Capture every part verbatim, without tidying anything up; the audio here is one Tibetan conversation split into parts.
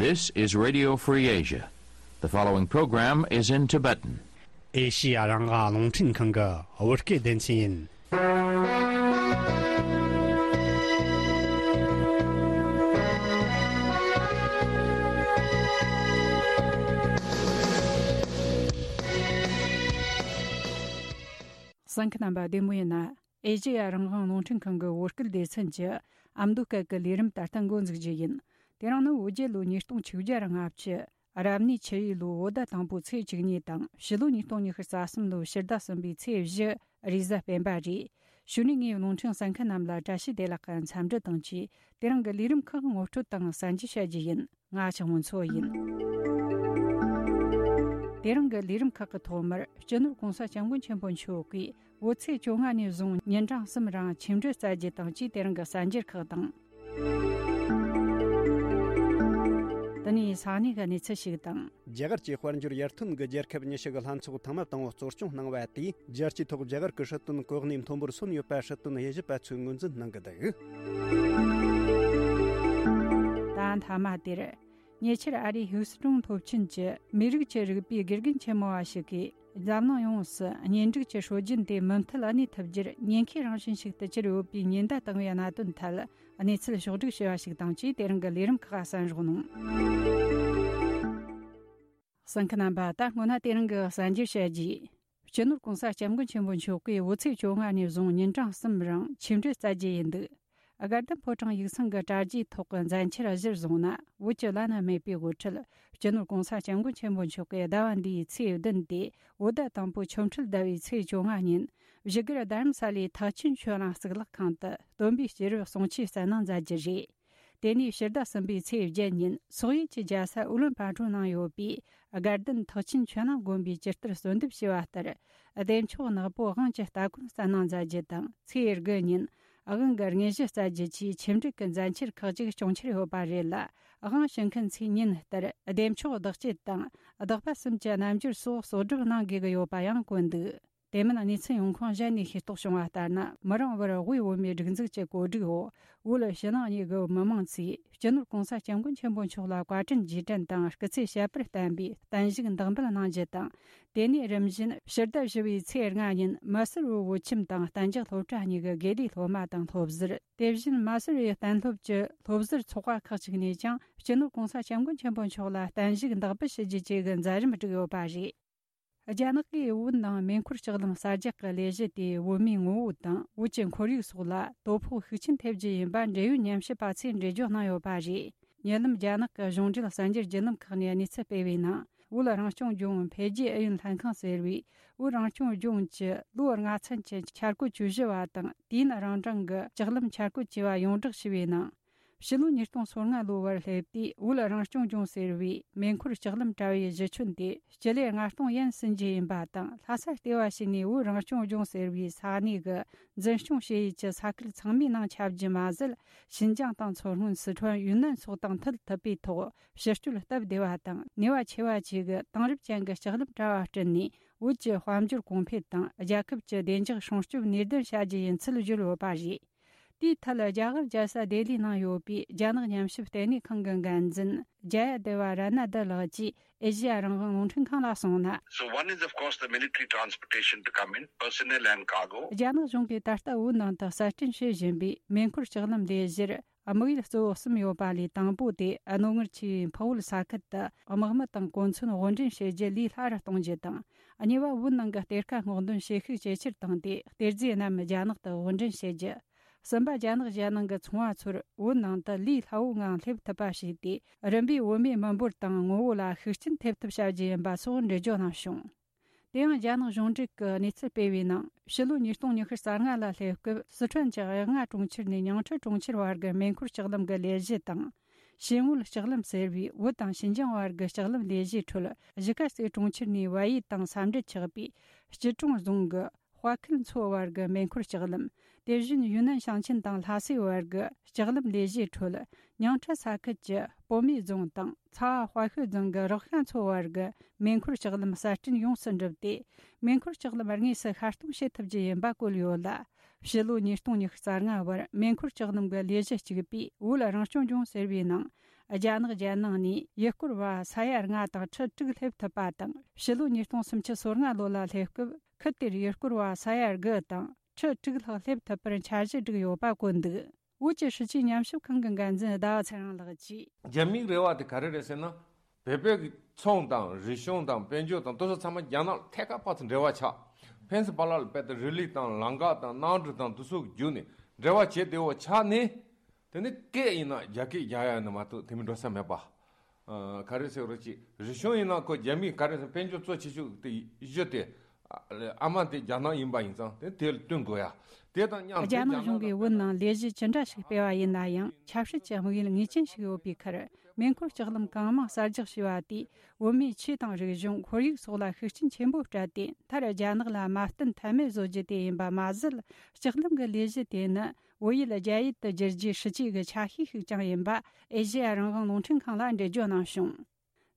This is Radio Free Asia. The following program is in Tibetan. ཨེ་ཤི་ཡ་རང་དབང་རླུང་འཕྲིན་ཁང་གི་བོད་སྐད་སྡེ་ཚན་ཡིན། གསན་མཁན་རྣམ་པ་བདེ་མོ་ཡིན་ན། ཨེ་ཤི་ཡ་རང་དབང་རླུང་འཕྲིན་ཁང་གི་བོད་སྐད་སྡེ་ཚན་གྱི་ཨ་མདོ་སྐད་ཀྱི་ལས་རིམ་ད་ལྟ་འགོ་འཛུགས་རྒྱུ་ཡིན། དེ་རིང་ནི་བོད་རྒྱལ་ལོ་ཉིས་སྟོང་ཆིག་བརྒྱ་ར་ལྔ་བཅུ། རབ་གནས་ཆུ་ཡོས་ལོ་བོད་ཟླ་དང་པོའི་ཚེས་བཅུ་གཉིས་དང་ཕྱི་ལོ་ཉིས་སྟོང་ཉི་ཤུ་རྩ་གསུམ་ལོའི་ཕྱི་ཟླ་གསུམ་པའི་ཚེས་བཞི་རེས་གཟའ་སྤེན་པ་རེད། གཞུག་ནས་ངས་རླུང་འཕྲིན་གསན་མཁན་རྣམས་ལ་བཀྲ་ཤིས་བདེ་ལེགས་ཀྱི་འཚམས་འདྲི་དང་བཅས། དེ་རིང་གི་ལས་རིམ་ཁག་ངོ་སྤྲོད་དང་གསན་རྒྱུ་བྱ་རྒྱུ་ཡིན། ང་ཆགས་མོ་མཚོ་ཡིན། དེ་རིང་གི་ལས་རིམ་ཁག་གི་ཐོག་མར་སྤྱི་ནོར་༸གོང་ས་༸སྐྱབས་མགོན་ཆེན་པོ་མཆོག་གིས་བོད་ཚེས་བཅོ་ལྔ་ནས་བཟུང་ཉིན་གྲངས་གསུམ་རིང་ཆིག་འགྲིལ་སྩལ་རྒྱུ་དང་བཅས། དེ་རིང་གི་གསར་འགྱུར་ཁག་དང་། དེ་ནས་ས་གནས་ཀྱི་གནས་ཚུལ་ཞིག་དང་། རྒྱ་གར་གྱི་དཔལ་འབྱོར་ཡར་ཐོན་གྱི་རྒྱལ་ཁབ་ཉི་ཤུ་གི་ལྷན་ཚོགས་ཐེངས་མ་དང་པོ་གཙོ་སྐྱོང་གནང་བ་དེས། རྒྱལ་སྤྱིའི་ཐོག་རྒྱ་གར་གྱི་སྲིད་དོན་གོ་གནས་མཐོན་པོར་སོན་ཡོད་པ་སྲིད་དོན་དབྱེ་ཞིབ་པ་ཚོས་ངོས་འཛིན་གནང་གི་འདུག། ད་མཐའ་མ་དེར། ཉེ་ཆར་ཨ་རིའི་ཧིའུ་སི་ཀྲུང་སློབ་ཆེན་གྱི་མི་རིགས་ཀྱི་རིག་པའི་དགེ་རྒན་ཆེན་མོ་བ་ཞིག་གིས། འཛམ་གླིང་ཡོངས་སུ་གཉེན་སྒྲིག་གི་སྲོལ་རྒྱུན་དེ་མུ་མཐུད་གནས་ཐུབ་རྒྱུར་ཉེན་ཁའི་རང་བཞིན་ཞིག་ཏུ་གྱུར་ཡོད་པའི་ཉེན་བརྡ་བཏང་བའི་གནད་དོན་ཐད། གནས་ཚུལ་ཕྱོགས་བསྒྲིགས་བྱས་པ་ཞིག་དང་བཅས། དེ་རིང་གི་ལས་རིམ་ཁག་གསན་རོགས་གནང་། གསན་མཁན་རྣམ་པ། ད་སྔོན་ན་དེ་རིང་གི་གསར་འགྱུར་བཤད་རྒྱུ། སྤྱི་ནོར་༸གོང་ས་༸སྐྱབས་མགོན་ཆེན་པོ་མཆོག་གིས་བོད་ཚེས་བཅོ་ལྔ་ནས་བཟུང་ཉིན་གྲངས་གསུམ་རིང་ཆིག་འགྲིལ་སྩལ་རྒྱུ་ཡིན་འདུག། དགའ་ལྡན་ཕོ་བྲང་ཡིག་ཚང་གི་དྲ་རྒྱའི་ཐོག་གི་མཛད་འཆར་གཞིར་བཟུང་ན། བོད་ཀྱི་བླ་ན་མེད་པའི་དབུ་ཁྲིད་སྤྱི་ནོར་༸གོང་ས་༸སྐྱབས་མགོན་ཆེན་པོ་མཆོག་གིས་ཟླ་བ་འདིའི་ཚེས་བདུན་ཏེ་བོད་ཟླ་དང་པོའི་ཆོ་འཕྲུལ་ཟླ་བའི་ཚེས་བཅོ་ལྔ་ཉིན། བཞུགས་སྒར་རྡ་རམ་ས་ལའི་ཐེག་ཆེན་ཆོས་གླིང་གཙུག་ལག་ཁང་དུ་སྟོན་པའི་སྐྱེས་རབས་གསུང་ཆོས་གསན་གནང་མཛད་རྒྱུ་རེད། དེ་ནས་ཕྱི་ཟླ་གསུམ་པའི་ཚེས་བརྒྱད་ཉིན་སོག་ཡུལ་གྱི་རྒྱལ་ས་ཨུ་ལོན་པ་ཏྲོ་ནང་ཡོད་པའི་དགའ་ལྡན་ཐེག་ཆེན་ཆོས་གླིང་དགོན་པའི་ཇི་ལྟར་གསོལ་འདེབས་བྱས་པ་ལྟར། བདེ་མཆོག་ནག་པོ་དབང་གི་སྟ་གོན་གསན་གནང་མཛད་རྒྱུ་དང་། ཚེས་དགུ་ཉིན་དབང་གི་དངོས་གཞི་སྩལ་རྒྱུ་བཅས་ཆིག་འགྲིལ་གྱི་མཛད་འཆར་ཁག་ཅིག་སྐྱོང་འཆར་ཡོད་པ་རེད་ལ། དབང་ཞུ་མཁན་ཚོས་ཉིན་ལྟར་བདེ་མཆོག་བདག་བསྐྱེད་དང་བདག་པ་གསུམ་གྱི་རྣལ་འབྱོར་སོགས་གསོག་སྒྲུབ་གནང་དགོས་ཀྱི་ཡོད་པ་ཡང་བཀོད་འདུག། དེ་མིན་གནས་ཚུལ་ཡོང་ཁུངས་གཞན་ནས་ཤེས་རྟོགས་བྱུང་བ་ལྟར་ན། མི་རིང་བར་དབུས་བོད་མིའི་སྒྲིག་འཛུགས་ཀྱི་གོ་སྒྲིག་འོག་བོད་ཕྱི་ནང་གཉིས་ཀྱི་མི་མང་ཚོས་སྤྱི་ནོར་༸གོང་ས་༸སྐྱབས་མགོན་ཆེན་པོ་མཆོག་ལ་བཀའ་དྲིན་རྗེས་དྲན་དང་སྐུ་ཚེ་ཞབས་པད་བརྟན་པའི་བརྟན་བཞུགས་འདེགས་འབུལ་གནང་རྒྱུ་དང་། དེ་ནས་རིམ་བཞིན་ཕྱི་ཟླ་བཞི་པའི་ཚེས་ལྔ་ཉིན་མ་སུར་བོད་ཁྱིམ་དང་གཏན་འཇགས་སློབ་གྲྭ་གཉིས་ཀྱི་དགེ་ལས་སློབ་མ་དང་སློབ་ཟུར། དེ་བཞིན་མ་སུར་བའི་གཏན་སློབ་ཀྱི་སློབ་ཟུར་ཚོགས་པ་ཁག་ཅིག་ནས་ཀྱང་སྤྱི་ནོར་༸གོང་ས་༸སྐྱབས་མགོན་ཆེན་པོ་མཆོག་ལ་བརྟན་བཞུགས་འདེགས་འབུལ་ཞུ་རྒྱུ་བཅས་ཀྱི་མཛད་རིམ་བསྒྲིགས་ཡོད་པ་རེད། རྒྱ་ནག་གིས་བོད་ནང་མེ་འཁོར་ལྕགས་ལམ་གསར་རྒྱག་གི་ལས་གཞི་དེས་བོད་མིའི་ངོ་བོ་དང་བོད་ཀྱི་ཁོར་ཡུག་སོགས་ལ་དོ་ཕོག་ཤུགས་ཆེན་ཐེབས་རྒྱུ་ཡིན་པ་འབྲེལ་ཡོད་ཉམས་ཞིབ་པ་ཚོས་འགྲེལ་བརྗོད་གནང་ཡོད་པ་རེད། ཉེ་ལམ་རྒྱ་ནག་གི་གཞུང་འབྲེལ་གསར་འགྱུར་བརྒྱུད་ལམ་ཁག་ནས་གནས་ཚུལ་སྤེལ་བའི་ནང་། བོད་རང་སྐྱོང་ལྗོངས་འཕེལ་རྒྱས་ཨུ་ཡོན་ལྷན་ཁང་ཟེར་བས། བོད་རང་སྐྱོང་ལྗོངས་ཀྱི་ལོ་ལྔ་ཚན་གྱི་འཆར་འགོད་བཅུ་བཞི་བ་དང་། དུས་ཡུན་རིང་གྲངས་ཀྱི་ལྕགས་ལམ་འཆར་འགོད་ཅེས་པ་ཡོངས་བསྒྲགས་ཞུས་པའི་ནང་། ཕྱི་ལོ་ཉིས་སྟོང་སོ་ལྔ་ལོ་བར་སླེབས་དུས། བོད་རང་སྐྱོང་ལྗོངས་ཟེར་བའི་མེ་འཁོར་ལྕགས་ལམ་དྲ་བའི་གཞི་ཁྱོན་དེ་སྤྱི་ལེ་ལྔ་སྟོང་ཡན་ཟིན་རྒྱུ་ཡིན་པ་དང་། ལྷ་ས་ལྟེ་བ་བྱས་ནས་བོད་རང་སྐྱོང་ལྗོངས་ཟེར་བའི་ས་གནས་ཀྱི་འཛིན་སྐྱོང་བྱེད་ཡུལ་གྱི་ས་ཁུལ་ཚང་མའི་ནང་ཁྱབ་རྒྱུ་མ་ཟད། ཤིན་ཅང་དང་མཚོ་སྔོན། སི་ཁྲོན། ཡུན་ནན་སོགས་དང་མཐུད་ཐུབ་པའི་ཐོག་ཕྱིར་སྐྱོད་སྟབས་བདེ་བ་དང་ནུས་པ་ཆེ་བ་བཅས་ཀྱི་དེང་རབས་ཅན་གྱི་ལྕགས་ལམ་དྲ་བ་བསྐྲུན་ནས། བོད་ཀྱི་དཔལ་འབྱོར་གོང་འཕེལ་དང་རྒྱལ་ཁབ་ཀྱི་བདེ་འཇགས་སྲུང་སྐྱོབ་ནུས་ལྡན་བྱ་རྒྱུ་ཡིན་ཚུལ་བརྗོད་ཡོད་པ་རེད། དེའི་ཐད། རྒྱ་གར་རྒྱལ་ས་ལྡི་ལིའི་ནང་ཡོད་པའི་རྒྱ་ནག་ཉམས་ཞིབ་ལྟེ་གནས་ཁང་གི་འགན་འཛིན་ཇ་ཡ་དེ་བ་ར་ན་དི་ལགས་ཀྱིས་ཨེ་ཤེ་ཡ་རང་དབང་རླུང་འཕྲིན་ཁང་ལ་གསུངས་ན། So one is, of course, the military transportation to come in, personnel and cargo. རྒྱ་ནག་གཞུང་གིས་ད་ལྟ་བོད་ནང་དུ་གསར་སྐྲུན་བྱེད་བཞིན་པའི་མེ་འཁོར་ལྕགས་ལམ་ལས་གཞིར། དམིགས་ཡུལ་གཙོ་བོ་གསུམ་ཡོད་པ་ལས། དང་པོ་དེ་རྣོ་ངར་ཆེ་བའི་འཕགས་བོད་ས་ཁུལ་དུ་དམག་མི་དང་གོ་མཚོན་དབོར་འདྲེན་བྱེད་རྒྱུ་ལས་སླ་རུ་གཏོང་རྒྱུ་དང་། གཉིས་པ། བོད་ནང་གི་གཏེར་ཁ་སྔོག་འདོན་བྱེད་ཤུགས་ཇེ་ཆེར་བཏང་སྟེ། གཏེར་རྫས་རྣམས་རྒྱ་ནག་ཏུ་དབོར་འདྲེན་བྱེད་རྒྱུ། གསུམ་པ། རྒྱ་ནག་གཞན་ནང་གི་ཚོང་བ་ཚོར་བོད་ནང་དུ་ལས་སླ་བོའི་ངང་སླེབས་ཐུབ་པ་བྱས་ཏེ། རིམ་པས་བོད་མིའི་མི་འབོར་དང་ངོ་བོ་ལ་ཤུགས་རྐྱེན་ཐེབས་ཐབས་བྱ་རྒྱུ་ཡིན་པ་སོགས་འགྲེལ་བརྗོད་གནང་བྱུང་། དེ་ཡང་རྒྱ་ནག་གཞུང་འབྲེལ་གྱི་གནས་ཚུལ་སྤེལ་བའི་ནང་། ཕྱི་ལོ་ཉིས་སྟོང་ཉི་ཤུ་རྩ་ལྔ་ལ་སླེབས་སྐབས། སི་ཁྲོན་གྱི་གཡག་རྔ་གྲོང་ཁྱེར་ནས་ཉང་ཁྲི་གྲོང་ཁྱེར་བར་གྱི་མེ་འཁོར་ལྕགས་ལམ་གྱི་ལས་གཞི་དང་། ཞིན་ཝུལ་ལྕགས་ལམ་ཟེར་བའི་བོད་དང་ཤིན་ཅང་བར་གྱི་ལྕགས་ལམ་ལས་གཞིའི་ཁྲོད། གཞིས་ཀ་རྩེ་གྲོང་ཁྱེར་ནས་བལ་ཡུལ་དང་ས་འབྲེལ་ཆགས་པའི་སྐྱིད་གྲོང་རྫོང་གི་དཔའ་ཁུལ་མཚོ་བར་གྱི་མེ་འཁོར་ལྕགས་ལམ། དེ་བཞིན་ཡུན་ནན་ཞིང་ཆེན་དང་ལྷ་སའི་བར་གྱི་ལྕགས་ལམ་ལས་གཞིའི་ཁྲོད། ཉང་ཁྲི་ས་ཁུལ་གྱི་པོ་མེ་རྫོང་དང་ཚ་བ་དཔའ་ཤོད་རྫོང་གི་རག་ཤ་མཚོ་བར་གྱི་མེ་འཁོར་ལྕགས་ལམ་གསར་སྐྲུན་ཡོངས་སུ་འགྲུབ་སྟེ། མེ་འཁོར་ལྕགས་ལམ་དངོས་སུ་ཤར་གཏོང་བྱེད་ཐུབ་རྒྱུ་ཡིན་པ་བཀོད་ཡོད་ལ། ཕྱི་ལོ་ཉིས་སྟོང་ཉི་ཤུ་རྩ་ལྔ་བར་མེ་འཁོར་ལྕགས་ལམ་གྱི་ལས་གཞི་གཅིག་པུས་བོད་རང་སྐྱོང་ལྗོངས་ཟེར་བའི་ནང་ རྒྱ་ནག་རྒྱལ་ནང་ནས་ཡུལ་སྐོར་བ་ས་ཡ་ལྔ་དང་ཁྲི་དྲུག་སླེབས་ཐུབ་པ་དང་། ཕྱི་ལོ་ཉིས་སྟོང་སུམ་ཅུ་སོ་ལྔ་ལོ་ལ་སླེབས་སྐབས་ཁུལ་དེར་ཡུལ་སྐོར་བ་ས་ཡ་དགུ་དང་ཁྲི་དྲུག་ལྷག་སླེབས་ཐུབ་པར་འཆར་གཞི་བསྒྲིགས་ཡོད་པ་བཀོད་འདུག། བོད་ཀྱི་སྲིད་བྱུས་ཉམས་ཞིབ་ཁང་གི་འགན་འཛིན་ཟླ་བ་ཚེ་རིང་ལགས་ཀྱིས། རྒྱ་མིའི་རེ་བ་དེ་ག་རེ་རེད་ཟེར་ན། བོད་པའི་གི་ཚོང་དང་རིག་གཞུང་དང་དཔལ་འབྱོར་དང་དེ་ཚོ་ཚང་མ་རྒྱ་ནག་ཐད་ཀར་ཕར་ཚུར་འབྲེལ་བ་ཆགས། ཕན་ཚུན་བར་ལ་དཔེ་དེ་རི་ལི་དང་ལམ་ཁ་དང་གནམ་གྲུ་དང་དེ་ཚོ་བརྒྱུད་ནས་འབྲེལ་བ་བྱེད་བདེ་བོ་ཆགས་ནས། དེ་ནི་སྐད་ཡིན་ན་རྒྱ་སྐད་རྒྱག་ཡ་ནི་མ་གཏོགས་དེ་མིན་འགྲོ་ས་མེད་པ། ཨ། ག་རེ་ཟེར་རོ་ཅིག་རིག་གཞུང་ཡིན་ན་ཁོ་རྒྱ་མིས་ག་རེ་ཟེར་དཔལ་འབྱོར་གཙོ་ཆེ་ཤོས་དེ་གཞི་དེ། ཨ་མ་དེ་རྒྱ་ནག་ཡིན་པ་ཡིན་ཙང་དེ་དེ་ལ་བསྟུན་དགོས་ཡ། དེ་དང་མཉམ་དུ་རྒྱ་ནག་གཞུང་གིས་བོད་ནང་ལས་གཞི་ཅི་འདྲ་ཞིག་སྤེལ་བ་ཡིན་ན་ཡང་ཆབ་སྲིད་ཀྱི་དམིགས་ཡུལ་ངེས་ཅན་ཞིག་ཡོད་པའི་ཁར། མེ་འཁོར་ལྕགས་ལམ་གང་མང་གསར་རྒྱག་བྱས་པ་དེས་བོད་མིའི་ཆོས་དང་རིག་གཞུང་ཁོར་ཡུག་སོགས་ལ་ཤུགས་རྐྱེན་ཆེན་པོ་སྤྲད་དེ། མཐར་རྒྱ་ནག་ལ་མ་བསྟུན་ཐབས་མེད་བཟོ་རྒྱུ་དེ་ཡིན་པ་མ་ཟད། ལྕགས་ལམ་གྱི་ལས་གཞི་དེ་ནི་བོད་ཡུལ་རྒྱ་ཡུལ་དུ་བསྒྱུར་རྒྱུའི་སྲིད་ཇུས་ཀྱི་ཆ་ཤས་ཤིག་ཀྱང་ཡིན་པ་ཨེ་ཤེ་ཡ་རང་དབང་རླུང་འཕྲིན་ཁང་ལ་འགྲེལ་བརྗོད་གནང་བྱུང་།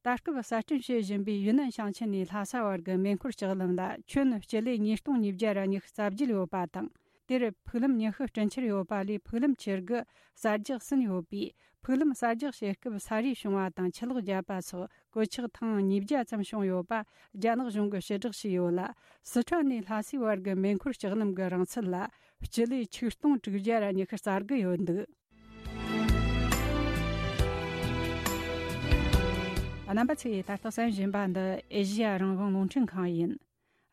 ད་སྐབས་གསར་སྐྲུན་བྱེད་བཞིན་པའི་ཡུན་ནན་ཞིང་ཆེན་ནས་ལྷ་ས་བར་གྱི་མེ་འཁོར་ལྕགས་ལམ་ལ་ཁྱོན་སྤྱི་ལེ་ཉིས་སྟོང་ཉིས་བརྒྱ་ར་ཉི་ཤུ་རྩ་བརྒྱད་ཡོད་པ་དང་། དེར་ཕུག་ལམ་ཉི་ཤུ་སྤྲིན་ཆེར་ཡོད་པ་ལས་ཕུག་ལམ་ཆེ་དགུ་གསར་རྒྱག་ཟིན་ཡོད་པས། ཕུག་ལམ་གསར་རྒྱག་བྱེད་སྐབས་ས་རུད་བྱུང་བ་དང་ཆུ་ལོག་བརྒྱབ་པ་སོགས་གོད་ཆག་ཐེངས་ཉིས་བརྒྱ་ཙམ་བྱུང་ཡོད་པ་རྒྱ་ནག་གཞུང་གིས་ཕྱིར་བསྒྲགས་བྱས་ཡོད་ལ། སི་ཁྲོན་ནས་ལྷ་སའི་བར་གྱི་མེ་འཁོར་ལྕགས་ལམ་གྱི་རིང་ཚད་ལ་སྤྱི་ལེ་ཆིག་སྟོང་དྲུག་བརྒྱ་ར་ཉི་ཤུ་རྩ་དགུ་ཡོད་འདུག། རྣམ་པ་ཚོས་ད་ལྟ་གསན་བཞིན་པ་འདི་ཨེ་ཤེ་ཡ་རང་དབང་རླུང་འཕྲིན་ཁང་ཡིན།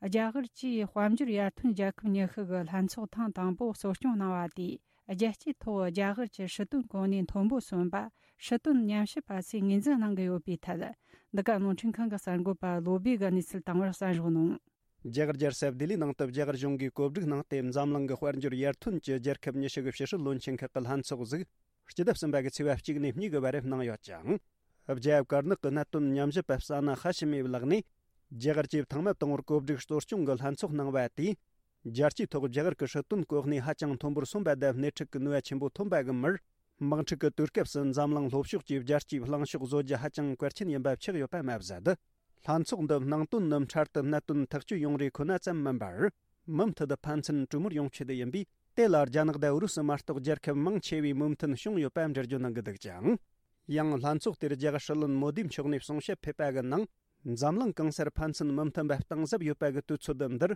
རྒྱ་གར་གྱིས་དཔལ་འབྱོར་ཡར་ཐོན་རྒྱལ་ཁབ་ཉི་ཤུ་གི་ལྷན་ཚོགས་ཐེངས་དང་པོ་གཙོ་སྐྱོང་གནང་བ་དེས། རྒྱལ་སྤྱིའི་ཐོག་རྒྱ་གར་གྱི་སྲིད་དོན་གོ་གནས་མཐོན་པོ་སོན་པ། སྲིད་དོན་ཉམས་ཞིབ་པ་ཚོས་ངོས་འཛིན་གནང་གི་ཡོད་པའི་ཐད། འདི་ག་རླུང་འཕྲིན་ཁང་གི་གསར་འགོད་པ་བློ་བྷེ་གིས་གནས་ཚུལ་དང་པོར་གསན་རོགས་གནང་། རྒྱ་གར་རྒྱལ་ས་ལྡི་ལིའི་ནང་དུ་རྒྱ་གར་གཞུང་གིས་གོ་སྒྲིག་གནང་སྟེ། འཛམ་གླིང་གི་དཔལ་འབྱོར་ཡར་ཐོན་གྱི་རྒྱལ་ཁབ་ཉི་ཤུ་གི་ཕྱི་སྲིད་བློན་ཆེན་ཁག་གི་ལྷན་ཚོགས་ཟིག་སྤྱི་ཟླ་གསུམ་པ་གི་ཚེས་པ་གཅིག་ནས་གཉིས་ཀྱི་བར་གནང་ཡོད་ཅིང་། རྒྱལ་ཡབ་ཀར་ནག་གི་གནད་དོན་ཉམས་ཞིབ་པ་ཟ་ན་ཧ་ཤི་མིའི་ལག་ནས། རྒྱ་གར་གྱིས་ཐེངས་མ་དང་པོར་གོ་སྒྲིག་གཙོ་སྐྱོང་གི་ལྷན་ཚོགས་གནང་བ་དེས། རྒྱལ་སྤྱིའི་ཐོག་རྒྱ་གར་གྱི་སྲིད་དོན་གོ་གནས་ཧ་ཅང་མཐོན་པོར་སོན་པ་དང་། སྣེ་ཁྲིད་ཀྱི་ནུས་པ་ཆེན་པོ་ཐོན་པ་གི་མིར། དམག་འཁྲུག་གི་དུས་སྐབས་སུ་འཛམ་གླིང་ལྷོ་ཕྱོགས་ཀྱི་རྒྱལ་སྤྱིའི་གླེང་ཕྱོགས་བཟོ་རྒྱུ་ཧ་ཅང་གལ་ཆེན་ཡིན་པ་ཆགས་ཡོད་པ་མ་ཟད། ལྷན་ཚོགས་འདི་ནང་དོན་ནི་འཕྲལ་དུ་གནད་དོན་ཐག་གཅོད་ཡོང་རེ་ཁོ་ན་ཙམ་མིན་པར། མུ་མཐུད་དུ་ཕན་ཚུན་གྲོས་མོལ་ཡོང་ཆེད་དུ་ཡིན་པས། དེ་ལ་རྒྱ་ནག་དང་ཨུ་རུ་སུ་མ་གཏོགས་རྒྱལ་ཁབ་མང་ཆེ་བས་མོས་མཐུན་བྱུང་ཡོད་པ་འགྲེལ་བརྗོད་གནང་གི་འདུག་ཅིང་། ཡང་ལྷན་ཚོགས་དེར་རྒྱ་གར་སྲིད་བློན་མོ་དི་མཆོག་ནས་གསུང་བཤད་ཕེབས་པ་གི་ནང་། འཛམ་གླིང་གང་སར་ཕན་ཚུན་མི་མཐུན་པ་གཏིང་ཟབ་ཡོད་པ་གི་དུས་ཚོད་འདིར།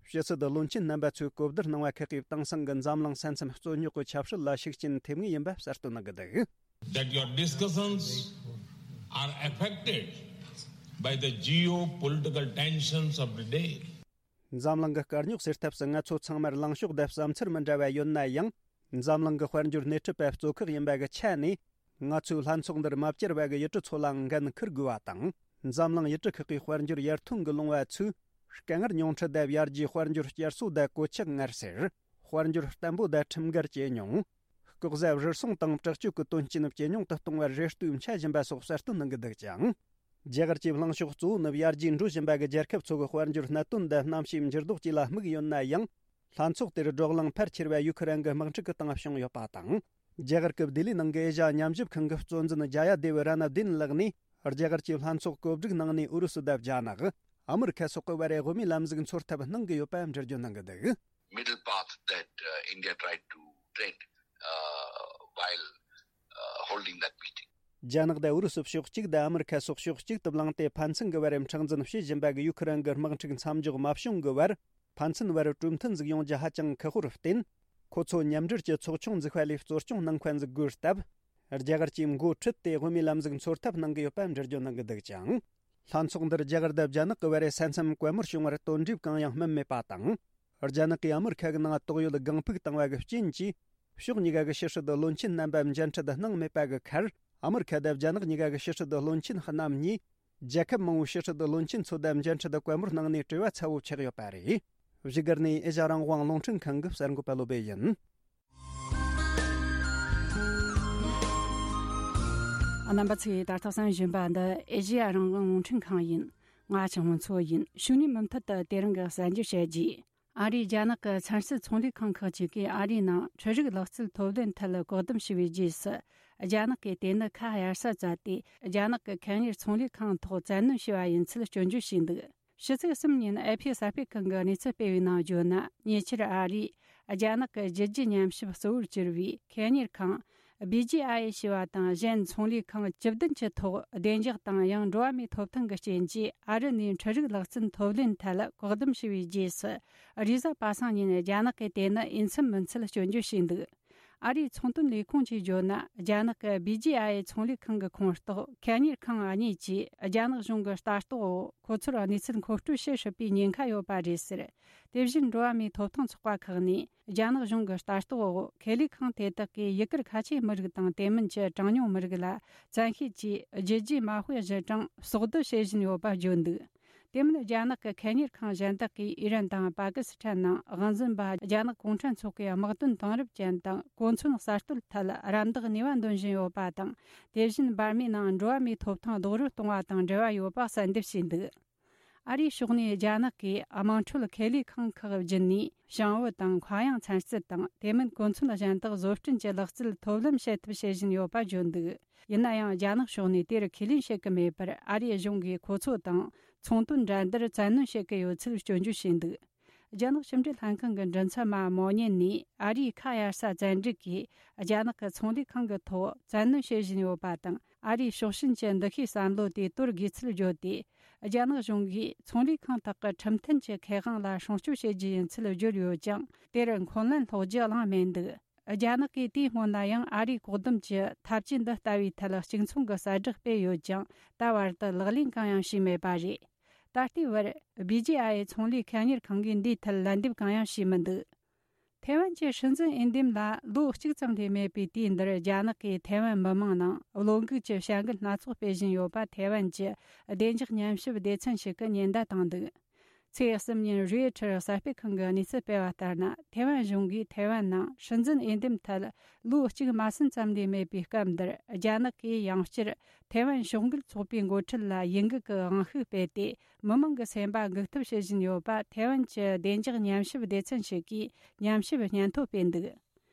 ཕྱི་སྲིད་བློན་ཆེན་རྣམ་པ་ཚོས་གོ་བསྡུར་གནང་བ་ཁག་གིས་དེང་སང་གི་འཛམ་གླིང་ས་མཚམས་རྩོད་རྙོག་གི་ཆབ་སྲིད་ལ་ཤུགས་རྐྱེན་ཐེབས་ངེས་ཡིན་པ་གསལ་སྟོན་གནང་གི་འདུག། That your discussions are affected by the geopolitical tensions of the day. འཛམ་གླིང་གི་དཀའ་རྙོག་སེལ་ཐབས་སུ་ང་ཚོ་ཚང་མར་ལངས་ཕྱོགས་དང་བསམ་ཚུལ་མི་འདྲ་བ་ཡོད་ན་ཡང་། འཛམ་གླིང་གི་དཔལ་འབྱོར་སྣེ་ཁྲིད་པ་གཙོ་ཁག་ཡིན་པ་གི་ཆ་ནས། ང་ཚོའི་ལྷན་ཚོགས་འདིར་མ་བཅར་བ་གི་ཡུལ་གྲུ་ཚོ་ལའང་འགན་འཁུར་དགོས་པ་དང་། འཛམ་གླིང་ཡུལ་གྲུ་ཁག་གིས་དཔལ་འབྱོར་ཡར་ཐོན་གྱི་ལོང་བ་ཚོས། དཀའ་ངལ་ཉུང་འཕྲི་དང་ཡར་རྒྱས་དཔལ་འབྱོར་བསྐྱར་གསོ་དང་གོད་ཆག་སྔར་སེལ། དཔལ་འབྱོར་བརྟན་པོ་དང་ཁྲིམས་འགལ་ཇེ་ཉུང་། ལྐོག་ཟ་རུལ་སུངས་དང་དྲག་སྤྱོད་ཀྱི་དོན་རྐྱེན་ཇེ་ཉུང་དུ་གཏོང་བར་རེ་ལྟོས་འཆའ་བཞིན་པ་སོགས་གསལ་སྟོན་གནང་གི་འདུག་ཅིང་། རྒྱ་གར་གྱི་ལངས་ཕྱོགས་གཙོ་བོ་ནི་ཡར་རྒྱས་འགྲོ་བཞིན་པ་གི་རྒྱལ་ཁབ་ཚོ་གི་དཔལ་འབྱོར་གནད་དོན་དང་གནམ་གཤིས་འགྱུར་ལྡོག་བཅས་ལ་དམིགས་ཡོད་ན་ཡང་། ལྷན་ཚོགས་དེར་བགྲོ་གླེང་ཕལ་ཆེར་བ་ཡུ་ཁུ་རན་གྱི་དམག་འཁྲུག་གི་སྟེང་བྱུང་ཡོད་པ་དང་། རྒྱ་གར་གྱི་ལྡི་ལིའི་ནང་གི་ཨེ་ཤ་ཡ་མཉམ་ཞིབ་ཁང་གི་གཙོ་འཛིན་ཇ་ཡ་དེ་བི་ར་ན་དིན་ལགས་ནས། རྒྱ་གར་གྱིས་ལྷན་ཚོགས་གོ་སྒྲིག་གནང་ནས་ཨུ་རུ་སུ་དང་རྒྱ་ནག་ཨ་མི་རི་ཁ་སོགས་ཀྱི་བར་དབུ་མའི་ལམ་ཟིག་འཚོལ་ཐབས་གནང་གི་ཡོད་པ་འགྲེལ་བརྗོད་གནང་གི་འདུག། Middle path that uh, India tried to tread uh, while uh, holding that meeting. རྒྱ་ནག་དང་ཨུ་རུ་སུ་ཕྱོགས་གཅིག་དང་ཨ་མི་རི་ཁ་སོགས་ཕྱོགས་གཅིག་ཏུ་བླངས་ཏེ་ཕན་ཚུན་གྱི་བར་མཁྲེགས་འཛིན་བྱེད་བཞིན་པ་གི་ཡུ་ཁུ་རན་གྱི་དམག་འཁྲུག་མཚམས་འཇོག་མ་བྱུང་གི་བར། ཕན་ཚུན་བར་གྲོས་མཐུན་ཟིག་ཡོང་རྒྱུ་ཧ་ཅང་ཁག་པོར་བརྟེན། ཁོ་ཚོ་མཉམ་འབྲེལ་གྱི་ཚོགས་ཆུང་འཛུགས་པ་ལས་གཙོ་སྐྱོང་གནང་མཁན་ཟིག་དགོས་སྟབས། རྒྱ་གར་གྱིས་མགོ་ཁྲིད་དེ་དབུ་མའི་ལམ་ཟིག་འཚོལ་ཐབས་གནང་གི་ཡོད་པ་འགྲེལ་བརྗོད་གནང་གི་འདུག་ཅིང་། ལྷན་ཚོགས་འདིར་རྒྱ་གར་དང་རྒྱ་ནག་གི་བར་ས་མཚམས་གད་མོར་བྱུང་བར་དོན་འགྲུབ་གང་ཡང་སྨིན་མེད་པ་དང་། རྒྱ་ནག་གིས་ཨ་མི་རི་ཁ་གི་ནང་དོགས་ཡོད་སྒང་ཕུག་བཏང་བ་གི་རྐྱེན་གྱིས། ཕྱོགས་གཉིས་ཀ་གི་ཕྱི་སྲིད་བློན་ཆེན་རྣམ་པ་མཇལ་འཕྲད་གནང་མེད་པ་གི་ཁར། ཨ་མི་རི་ཁ་དང་རྒྱ་ནག་གཉིས་ཀ་གི་ཕྱི་སྲིད་བློན་ཆེན་རྣམ་གཉིས། རྒྱལ་ཁབ་མང་བོའི་ཕྱི་སྲིད་བློན་ཆེན་ཚོ་དང་མཇལ་འཕྲད་དང་བཀའ་མོལ་གནང་ནས་བྲེལ་བ་ཚ་བོ་ཆགས་ཡོད་པ་རེད། བཞུགས་སྒར་ནས་ཨེ་ཤ་ཡ་རང་དབང་རླུང་འཕྲིན་ཁང་གི་གསར་འགོད་པ་བློ་བྷེ་ཡིན། རྣམ་པ་ཚོས་ད་ལྟ་གསན་བཞིན་པ་འདི་ཨེ་ཤ་ཡ་རང་དབང་རླུང་འཕྲིན་ཁང་ཡིན། ང་ཆང་མོ་མཚོ་ཡིན། ཕྱི་ཉིན་མུ་མཐུད་དུ་དེ་རིང་གི་གསར་འགྱུར་བཤད་རྒྱུ། ཨ་རིའི་རྒྱ་ནག་གི་ཚན་རྩལ་ཚོང་ལས་ཁང་ཁག་ཅིག་གིས་ཨ་རིའི་ནང་འཕྲུལ་རིག་ལག་རྩལ་ཐོབ་ལེན་ཐད་བཀག་སྡོམ་བྱས་པའི་རྗེས་སུ། རྒྱ་ནག་གིས་དེ་ནི་ཁ་གཡར་ས་བཙལ་ཏེ། རྒྱ་ནག་གི་ཁེ་གཉེར་ཚོང་ལས་ཁང་ཐོག་བཙན་གནོན་བྱས་པ་ཡིན་ཚུལ་སྐྱོན་བརྗོད་བྱས་འདུག། ཕྱི་ཚེས་གསུམ་ཉིན་ཨེ་ཕི་གསར་སྤེལ་ཁང་གིས་གནས་ཚུལ་སྤེལ་བའི་ནང་བརྗོད་ན། ཉེ་ཆར་ཨ་རིས་རྒྱ་ནག་གི་རྒྱུད་རྒྱུ་ཉམས་ཞིབ་གཙོ་བོར་གྱུར་བའི་ཁེ་གཉེར་ཁང་ བི་ཇི་ཨའི་ཨེ་ཞེས་པ་དང་གཞན་ཚོང་ལས་ཁང་བཅུ་བདུན་གྱི་ཐོག་བདེ་འཇགས་དང་ཡང་འགྲོ་བ་མིའི་ཐོབ་ཐང་གི་རྐྱེན་གྱིས་ཨ་རི་ནས་འཕྲུལ་རིག་ལག་རྩལ་ཐོབ་ལེན་ཐད་བཀག་སྡོམ་བྱས་པའི་རྗེས་སུ། རེས་གཟའ་པ་སངས་ཉིན་རྒྱ་ནག་གིས་དེ་ནི་འོས་འཚམ་མིན་ཚུལ་སྐྱོན་བརྗོད་བྱས་འདུག་ཨ་རིའི་ཚོང་དོན་ལས་ཁུངས་ཀྱིས་བརྗོད་ན། རྒྱ་ནག་གི་བི་ཇི་ཨའི་ཨེ་ཚོང་ལས་ཁང་གི་ཁོངས་གཏོགས་ཁེ་གཉེར་ཁང་གཉིས་ཀྱིས་རྒྱ་ནག་གཞུང་གི་ལྟ་རྟོག་འོག་ཁོ་ཚོར་གནས་ཚུལ་མཁོ་སྤྲོད་བྱེད་སྲིད་པའི་ཉེན་ཁ་ཡོད་པ་རེད་ཟེར། དེ་བཞིན་འགྲོ་བ་མིའི་ཐོབ་ཐང་ཚོགས་པ་ཁག་ནས། རྒྱ་ནག་གཞུང་གི་ལྟ་རྟོག་འོག་ཁེ་ལས་ཁང་དེ་དག་གིས་ཡི་གེར་ཁ་ཆེའི་མི་རིགས་དང་དེ་མིན་གྱི་གྲངས་ཉུང་མི་རིགས་ལ་བཙན་ཤེད་ཀྱིས་རྒྱུ་རྒྱུ་མ་དཔེ་གཞི་གྲངས་ཟོག་བསྡུ་བྱེད་བཞིན་ཡོད་པ་བརྗོད་འདུག་དེ་མིན་རྒྱ་ནག་གི་ཁེ་གཉེར་ཁང་གཞན་དག་གིས་ཨི་རན་དང་པ་ཀི་སི་ཐན་ནང་དབང་འཛིན་པ་རྒྱ་ནག་གུང་ཁྲན་ཚོགས་པའི་དམག་དོན་དེང་རབས་ཅན་དང་གོ་མཚོན་གསར་གཏོད་ཐད་རམ་འདེགས་ནུས་པ་འདོན་བཞིན་ཡོད་པ་དང་། དེ་བཞིན་འབར་མའི་ནང་འགྲོ་བ་མིའི་ཐོབ་ཐང་རྡོག་རོལ་གཏོང་བ་དང་འབྲེལ་བ་ཡོད་པ་གསལ་འདེབས་བྱས་འདུག་ཨ་རིའི་ཕྱོགས་ནས་རྒྱ་ནག་གིས་དམངས་ཁྲོད་ཁེ་ལས་ཁང་ཁག་བརྒྱུད་ནས་ཞིང་བུ་དང་མཁའ་དབྱིངས་ཚན་རྩལ་དང་དེ་མིན་གོ་མཚོན་གཞན་དག་བཟོ་སྐྲུན་གྱི་ལག་རྩལ་ཐོབ་ལམ་བྱེད་ཐབས་བྱེད་བཞིན་ཡོད་པ་བརྗོད་འདུག་ཡིན་ན་ཡང་རྒྱ་ནག་ཕྱོགས་ནས་དེར་ཁས་ལེན་བྱེད་ཀྱི་མེད་པར་ཨ་རིའི་གཞུང་གིས་ཁོ་ཚོ་དང་ཚོང་དོན་འགྲན་བསྡུར་བཙན་གནོན་བྱེད་ཀྱི་ཡོད་ཚུལ་སྐྱོན་བརྗོད་བྱས་འདུག་རྒྱ་ནག་ཕྱི་འབྲེལ་ལྷན་ཁང་གི་མགྲིན་ཚབ་མ་མོ་ཉན་ནས་ཨ་རིའི་ཁ་གཡར་ས་བཙན་སྒྲིག་གིས་རྒྱ་ནག་གི་ཚོང་ལས་ཁང་གི་ཐོག་བཙན་གནོན་བྱེད་བཞིན་ཡོད་པ་དང་། ཨ་རིའི་ཕྱོགས་ཞེན་གྱི་འདུ་ཤེས་བསམ་བློ་དེ་དོར་དགོས་ཚུལ་བརྗོད་དེ། རྒྱ་ནག་གཞུང་གིས་ཚོང་ལས་ཁང་དག་གི་ཁྲིམས་མཐུན་གྱི་ཁེ་དབང་ལ་སྲུང་སྐྱོབ་བྱེད་རྒྱུ་ཡིན་ཚུལ་བརྗོད་ཡོད་ཀྱང་། དེར་འཁོན་ལན་སློག་རྒྱུ་གླེང་མེད་འདུག་རྒྱ་ནག་གིས་དེའི་སྔོན་ལ་ཡང་ཨ་རིའི་བཀག་སྡོམ་གྱི་ཐབས་ཇུས་འདི་ལྟ་བུའི་ཐད་གཅིག་མཚུངས་ཀྱི་གསལ་བསྒྲགས་སྤེལ་ཡོད་ཀྱང་། ད་བར་དུ་ལག་ལེན་གང་ཡང་བྱས་མེད་པ་རེད། ད་ལྟའི་བར། བི་ཇི་ཨའི་ཨེ་ཚོང་ལས་ཁེ་གཉེར་ཁང་གིས་འདིའི་ཐད་ལན་འདེབས་གང་ཡང་བྱས་མི་འདུག་ཐེ་ཝན་གྱི་སྲིད་འཛིན་འོས་འདེམས་ལ་ལོ་གཅིག་ཙམ་ལས་མེད་པའི་དུས་འདིར། རྒྱ་ནག་གིས་ཐེ་ཝན་མི་མང་ནང་བློ་འགུག་གི་བྱ་འགུལ་སྣ་ཚོགས་སྤེལ་བཞིན་ཡོད་པ། ཐེ་ཝན་གྱི་བདེ་འཇགས་ཉམས་ཞིབ་སྡེ་ཚན་ཞིག་གིས་ཉེན་བརྡ་བཏང་འདུག་ཚེས་གསུམ་ཉིན་རོའི་ཊར་གསར་སྤེལ་ཁང་གིས་གནས་ཚུལ་སྤེལ་བ་ལྟར་ན། ཐེ་ཝན་གཞུང་གིས་ཐེ་ཝན་ནང་སྲིད་འཛིན་འོས་འདེམས་ཐད་ལོ་གཅིག་མ་ཟིན་ཙམ་ལས་མེད་པའི་སྐབས་འདིར། རྒྱ་ནག་གིས་ཡང་བསྐྱར་ཐེ་ཝན་ཕྱོགས་འགལ་ཚོགས་པའི་འགོ་ཁྲིད་ལ་ཡིད་འགུག་གི་དབང་ཤུགས་སྤེལ་ཏེ། མི་མང་གི་སེམས་པ་འགུག་ཐབས་བྱེད་བཞིན་ཡོད་པ། ཐེ་ཝན་གྱི་བདེ་འཇགས་ཉམས་ཞིབ་སྡེ་ཚན་ཞིག་གིས་ཉམས་ཞིབ་སྙན་ཐོ་སྤེལ་འདུག་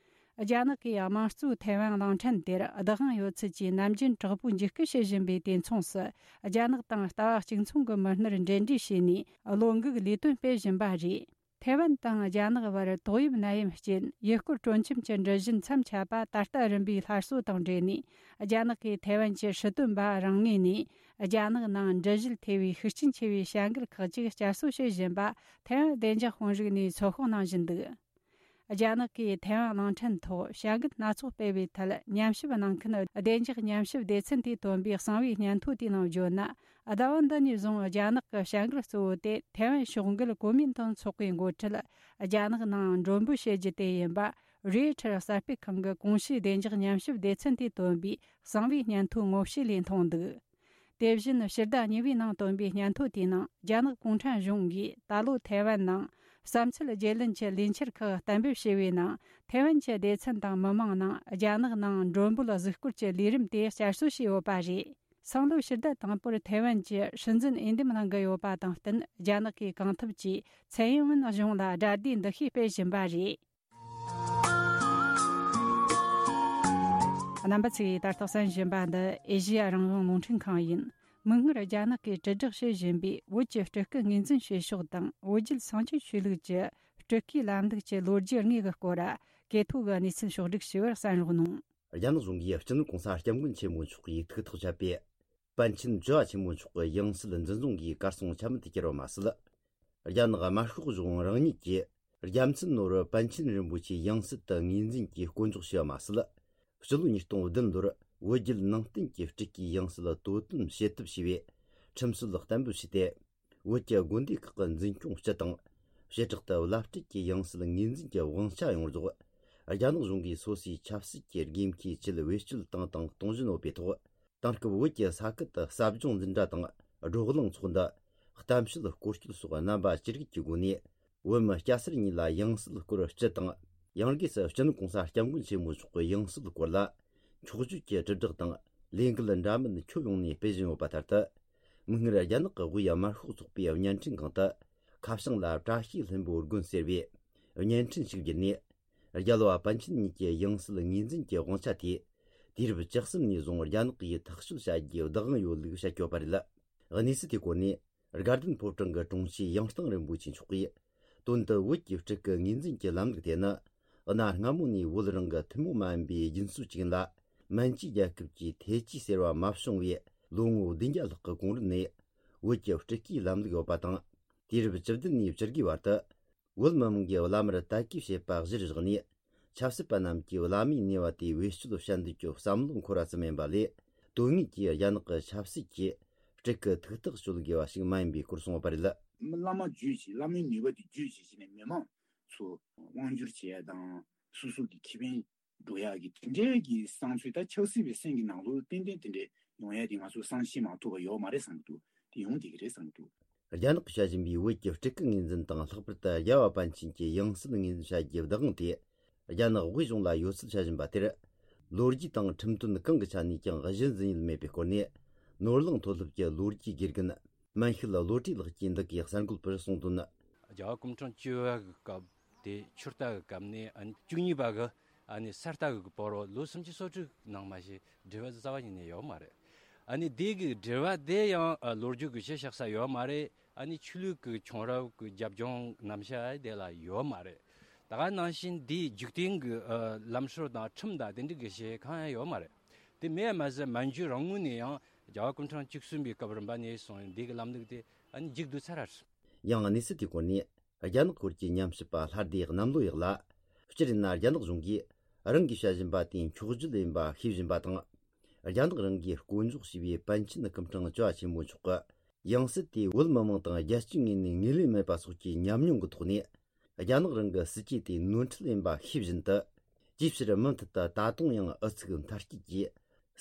རྒྱ་ནག་གིས་དམངས་གཙོའི་ཐེ་ཝན་གླིང་ཕྲན་དེར་བདག་དབང་ཡོད་ཚུལ་གྱི་ནམ་རྒྱུན་དྲག་པོའི་འཇིགས་སྐུལ་བྱེད་བཞིན་པའི་དུས་མཚུངས་སུ། རྒྱ་ནག་དང་ལྟ་བ་གཅིག་མཚུངས་ཀྱི་མི་སྣར་འབྲེལ་འདྲིས་བྱས་ནས་བློ་འགུག་ལས་དོན་སྤེལ་བཞིན་པ་རེད། ཐེ་ཝན་དང་རྒྱ་ནག་བར་ཏོག་དབྱིབས་ནད་ཡམས་རྐྱེན་ཡུལ་སྐོར་སྤྲོ་འཆམ་གྱི་འགྲུལ་བཞུད་མཚམས་ཆད་པ་ད་ལྟ་རིམ་པས་སླར་གསོ་དང་འབྲེལ་ནས། རྒྱ་ནག་གིས་ཐེ་ཝན་གྱི་སྲིད་དོན་པ་རང་ངོས་ནས། རྒྱ་ནག་ནང་འགྲུལ་བཞུད་ཐེ་བའི་ཤུགས་རྐྱེན་ཆེ་བའི་བྱ་འགུལ་ཁག་ཅིག་བསྐྱར་གསོ་བྱེད་བཞིན་པ། ཐེ་ཝན་བདེ་འཇགས་དཔོན་རིགས་ནས་ཚོད་དཔག་གནང་བཞིན་འདུག་རྒྱ་ནག་གིས་ཐེ་ཝན་གླིང་ཕྲན་ཐོག་བྱ་འགུལ་སྣ་ཚོགས་སྤེལ་བའི་ཐད། ཉམས་ཞིབ་གནང་མཁན་བདེ་འཇགས་ཉམས་ཞིབ་སྡེ་ཚན་དེས་བཏོན་པའི་གསང་བའི་སྙན་ཐོ་དེའི་ནང་བརྗོད་ན། ཟླ་བ་འདི་ནས་བཟུང་རྒྱ་ནག་གི་བྱ་འགུལ་གཙོ་བོ་དེ་ཐེ་ཝན་ཕྱོགས་འགལ་གོ་མིན་ཏང་ཚོགས་པའི་འགོ་ཁྲིད་རྒྱ་ནག་ནང་མགྲོན་འབོད་བྱེད་རྒྱུ་དེ་ཡིན་པ། རོའི་ཊར་གསར་སྤེལ་ཁང་གི་གོང་ཞུས་བདེ་འཇགས་ཉམས་ཞིབ་སྡེ་ཚན་དེས་བཏོན་པའི་གསང་བའི་སྙན་ཐོའི་ངོ་བཤུས་ལས་མཐོང་འདུག་དེ་བཞིན་ཕྱི་ཟླ་གཉིས་པའི་ནང་བཏོན་པའི་སྙན་ཐོ་དེའི་ནང་། རྒྱ་ནག་གུང་ཁྲན་གཞུང་གིས་ད་ལོ་ཐེ་ཝན་ནང་བསམ་ཚུལ་བརྗེ་ལེན་གྱི་ལས་འཆར་ཁག་གཏན་འབེབས་བྱས་པའི་ནང་། ཐེ་ཝན་གྱི་སྡེ་ཚན་དང་མི་མང་ནང་རྒྱ་ནག་ནང་མགྲོན་འབོད་གཟིགས་སྐོར་གྱི་ལས་རིམ་དེ་བསྐྱར་གསོ་བྱས་ཡོད་པ་རེད། སང་ལོའི་ཕྱི་ཟླ་དང་པོར་ཐེ་ཝན་གྱི་སྲིད་འཛིན་འོས་འདེམས་གནང་གི་ཡོད་པ་དང་བསྟུན། རྒྱ་ནག་གིས་གང་ཐུབ་ཀྱིས་ཚའེ་ཡིན་ཝུན་གཞུང་ལ་དགྲ་ཟླའི་འདུ་ཤེས་སྤེལ་བཞིན་པ་རེད། རྣམ་པ་ཚོས་ད་ལྟ་གསན་བཞིན་པ་འདི་ཨེ་ཤེ་ཡ་རང་དབང་རླུང་འཕྲིན་ཁང་ཡིན། མིག་སྔར་རྒྱ་ནག་གིས་དྲིལ་བསྒྲགས་བྱེད་བཞིན་པའི་བོད་ཀྱི་སྤྲུལ་སྐུ་ངོས་འཛིན་བྱེད་ཕྱོགས་དང་། བོད་བརྒྱུད་སངས་རྒྱས་ཆོས་ལུགས་ཀྱི་སྤྲུལ་སྐུའི་ལམ་ལུགས་ཀྱི་ལོ་རྒྱུས་དངོས་ཀྱི་སྐོར། གོ་ཐོས་ཀྱི་གནས་ཚུལ་ཕྱོགས་བསྒྲིགས་ཞུ་བར་གསན་རོགས་གནང་། རྒྱ་ནག་གཞུང་གིས་སྤྱི་ནོར་གོང་ས་སྐྱབས་མགོན་ཆེན་པོ་མཆོག་གི་ཐུགས་ཐག་བཅད་པའི་པཎ་ཆེན་བཅུ་བ་ཆེན་པོ་མཆོག་གི་ཡང་སྲིད་འཛིན་བཟུང་གིས་གར་སོང་ཆ་མེད་དུ་གྱུར་བ་མ་ཟད། རྒྱ་ནག་དམར་ཤོག་གཞུང་རང་ཉིད་ཀྱིས་རྒྱལ་མཚན་ནོར་བུ་པཎ་ཆེན་རིན་པོ་ཆེའི་ཡང་སྲིད་དུ་ངོས་འཛིན་གྱིས་བསྐོ་འཇོག་བྱས་པ་མ་ཟད། སྤྱི་ལོ་ཉིས་སྟོང་བདུན་ལོར་བོད་བརྒྱུད་ནང་བསྟན་གྱི་སྤྲུལ་སྐུའི་ཡང་སྲིད་དོ་དམ་བྱེད་ཐབས་ཞེས་པའི་ཁྲིམས་སྲོལ་གཏན་འབེབས་བྱས་ཏེ། བོད་ཀྱི་དགོན་སྡེ་ཁག་གི་འཛིན་སྐྱོང་སྤྱི་དང་། བྱེ་བྲག་ཏུ་བླ་སྤྲུལ་གྱི་ཡང་སྲིད་ངོས་འཛིན་གྱི་དབང་ཆ་ཡོངས་རྫོགས་རྒྱ་ནག་གཞུང་གིས་སོ་སོའི་ཆབ་སྲིད་ཀྱི་དགོས་མཁོའི་ཆེད་བེད་སྤྱོད་བཏང་དང་གཏོང་བཞིན་ཡོད་པའི་ཐོག་དེང་སྐབས་བོད་ཀྱི་ས་ཁུལ་དུ་ཟབ་སྦྱོང་འཛིན་གྲྭ་དང་བགྲོ་གླེང་ཚོགས་འདུ། གཏམ་བཤད་སྐོར་སྐྱོད་སོགས་རྣམ་པ་ཅི་རིགས་ཀྱི་སྒོ་ནས། བོད་མི་སྐྱ་སེར་གཉིས་ལ་ཡང་སྲིད་སྐོར་སྤྱི་དང་། ཡང་སྒོས་སུ་སྤྱི་ནོར་གོང་ས་སྐྱབས་མགོན་ཆེན་པོ་མཆོག་གི་ཡང་སྲིད་སྐོར་ལ་འཁྱོག་བརྗོད་ཀྱི་དྲིལ་བསྒྲགས་དང་ལས་འགུལ་འདྲ་མིན་ཁྱོན་ཡོངས་ནས་སྤེལ་བཞིན་ཡོད་པ་ལྟར་དུ། མིག་སྔར་རྒྱ་ནག་གི་དབུས་དམར་ཤོག་ཚོགས་པའི་བརྙན་འཕྲིན་ཁང་དུ་ཁ་བྱང་ལ་བཀྲ་ཤིས་ལྷུན་པོའི་དགོན་ཟེར་བའི་བརྙན་འཕྲིན་ཞིག་བརྒྱུད་ནས། རྒྱལ་བ་པཎ་ཆེན་གཉིས་ཀྱི་ཡང་སྲིད་ངོས་འཛིན་གྱི་དབང་ཆ་དེ་དུས་རབས་བཅུ་གསུམ་ནས་བཟུང་རྒྱ་ནག་གིས་ཐག་གཅོད་བྱ་རྒྱུའི་བདག་དབང་ཡོད་ལུགས་བཤད་ཡོད་པ་རེད། གནས་ཚུལ་དེའི་སྐོར་ནས། དགའ་ལྡན་ཕོ་བྲང་གི་དྲུང་ཆེ་ཡང་སྟེང་རིན་པོ་ཆེ་མཆོག་གིས། དོན་དུ་བོད་ཀྱི་སྤྲུལ་སྐུ་ངོས་འཛིན་གྱི་ལམ་ལུགས་དེ་ནི། གནའ་སྔ་མོ་ནས་བོད་རང་གི་ཐུན་མོང་མ་ཡིན་པའི་རྒྱུན་སྲོལ་ཅིག་ཡིན་ལ། མན་ཇུའི་རྒྱལ་ཁབ་ཀྱི་ཐེ་ཇུས་ཟེར་བ་མ་བྱུང་བའི་ལོ་ངོ་བདུན་བརྒྱ་ལྷག་གི་གོང་རིམ་ནས་བོད་ཀྱི་སྤྲུལ་སྐུའི་ལམ་ལུགས་ཡོད་པ་དང་། དུས་རབས་བཅུ་བདུན་ནས་བཅུ་དགུའི་བར་དུ། བོད་མི་མང་གི་བླ་མར་དད་གུས་བྱེད་པ་གཞིར་བཞག་ནས། ཆབ་སྲིད་པ་རྣམས་ཀྱིས་བླ་མའི་ནུས་པ་དེ་བེད་སྤྱོད་བྱ་འདོད་ཀྱི་བསམ་བློ་འཁོར་བ་ཙམ་ཡིན་པ་ལས། དོན་དངོས་ཀྱི་རྒྱ་ནག་གི་ཆབ་སྲིད་ཀྱི་སྤྲུལ་སྐུ་ཐུགས་ཐག་གཅོད་དགོས་པ་ཞིག་མ་ཡིན་པའི་སྐོར་གསུངས་པ་རེད། བླ་མ་བརྒྱུད་བྱས། བླ་མའི་ནུས་པ་དེ་བརྒྱུད་བྱས་བྱས་ནས་མི་མང་ཚོ་དབང་བསྒྱུར་བྱེད་ཡ་དང་། སོ་སོ་གི་ཁེ་ཕན་འགྲོ་ཡག་གི་དེ་འདྲའི་གི་བསམ་ཚུལ། ད་ཆབ་སྲིད་པའི་སེམས་ཀྱི་ནང་ལོགས་ཏན་ཏན་དེ་འདྲའི་ཡོང་ཡ་དེ་ང་ཚོ་བསམ་ཤེས་མ་ཐུབ་པ་ཡོད་མ་རེད་བསམ་གྱི་འདུག་དེ་ཡོང་བསྡད་ཀྱི་རེད་བསམ་གྱི་འདུག་རྒྱ་ནག་གིས་བྱ་བཞིན་པའི་བོད་ཀྱི་སྤྲུལ་སྐུ་ངོས་འཛིན་དང་། ལྷག་པར་དུ་རྒྱལ་བ་པཎ་ཆེན་གྱི་ཡང་སྲིད་ངོས་འཛིན་བྱ་རྒྱུའི་བདག་དབང་དེ་རྒྱ་ནག་དབུས་གཞུང་ལ་ཡོད་ཚུལ་བྱ་བཞིན་པ་དེར། ལོ་རྒྱུས་དང་ཁྲིམས་དོན་གང་གི་ཆ་ནས་ཀྱང་གཞི་འཛིན་ཡུལ་མེད་པའི་སྐོར་ནས། ནོར་གླིང་མཐོ་སློབ་ཀྱི་ལོ་རྒྱུས་དགེ་རྒན་མན་ཤུལ་བློ་གྲོས་ལགས་ཀྱིས་འདི་གའི་གསར་འགོད་པར་གསུངས་དོན། རྒྱལ་བ་སྐུ་ཕྲེང་བཅུ་བ་གི་སྐབས་དེ་ཆུ་རྟ་གི་སྐབས་ནས། ཨ་ནི་བཅུ་གཉིས་པ་གི་ཨ་ནི་ས་རྟ་གི་བར་རོ་ལོ་སུམ་ཅུ་སོ་དྲུག་ནང་མ་གཞི་འབྲེལ་བ་རྩ་བ་ཉིད་ནས་ཡོད་མ་རེད། ཨ་ནི་དེ་གི་འབྲེལ་བ་དེ་ཡང་ཨ་ལོ་རྒྱུས་ཀྱི་གཞི་བཞག་ས་ཡོད་མ་རེད། ཨ་ནི་ཆོས་ལུགས་ཀྱི་ཁྱོང་རབས་ཀྱི་རྒྱབ་ལྗོངས་རྣམ་གཞག་དེ་ལ་ཡོད་མ་རེད། ད་ག་ནང་བཞིན་དེའི་འཇིག་རྟེན་གྱི་ཨ་ལམ་སྲོལ་དང་ཁྲིམས་དང་དེ་འདྲ་གི་གཞི་གང་ཡང་ཡོད་མ་རེད། དེ་མེད་མ་ཟད་མན་ཇུ་རང་ངོས་ནས་ཡང་རྒྱལ་བ་སྐུ་ཕྲེང་བཅུ་གསུམ་པའི་སྐབས་རིམ་པ་ནས་བཟུང་འདི་གི་ལམ་ལུགས་དེ་ཨ་ནི་མཇུག་བསྡུ་ཚར་རེད། ཡང་གནས་ཚུལ་དེའི་སྐོར་ནས་རྒྱ་ནག་སྐོར་གྱི་ཉམས་ཞིབ་པ་ལྷ་སྡེ་གནམ་ལོ་ཡག་ལ། སྤྱིར་ཡིན་ན་རྒྱ་ནག་གཞུང་གིས་རང་གིས་བྱ་བཞིན་པ་དེ་འཁྱོག་བརྗོད་ཡིན་པ་ཤེས་བཞིན་པ་དང་། རྒྱ་ནག་རང་གིས་བསྐོ་འཇོག་བྱས་པའི་པཎ་ཆེན་སྐུ་ཕྲེང་བཅུ་བ་ཆེན་པོ་མཆོག་གི་ཡང་སྲིད་དེ་བོད་མི་མང་དང་རྒྱལ་སྤྱིའི་ངོས་ནས་ངོས་ལེན་མེད་པ་སོགས་ཀྱི་ཉམས་མྱོང་གི་ཐོག་ནས། རྒྱ་ནག་རང་གི་སྲིད་ཇུས་དེ་ནོར་འཁྲུལ་ཡིན་པ་ཤེས་བཞིན་དུ། ཅིའི་ཕྱིར་མུ་མཐུད་དུ་ད་དུང་ཡང་ཨུ་ཚུགས་མཐའ་སྐྱེལ་གྱིས་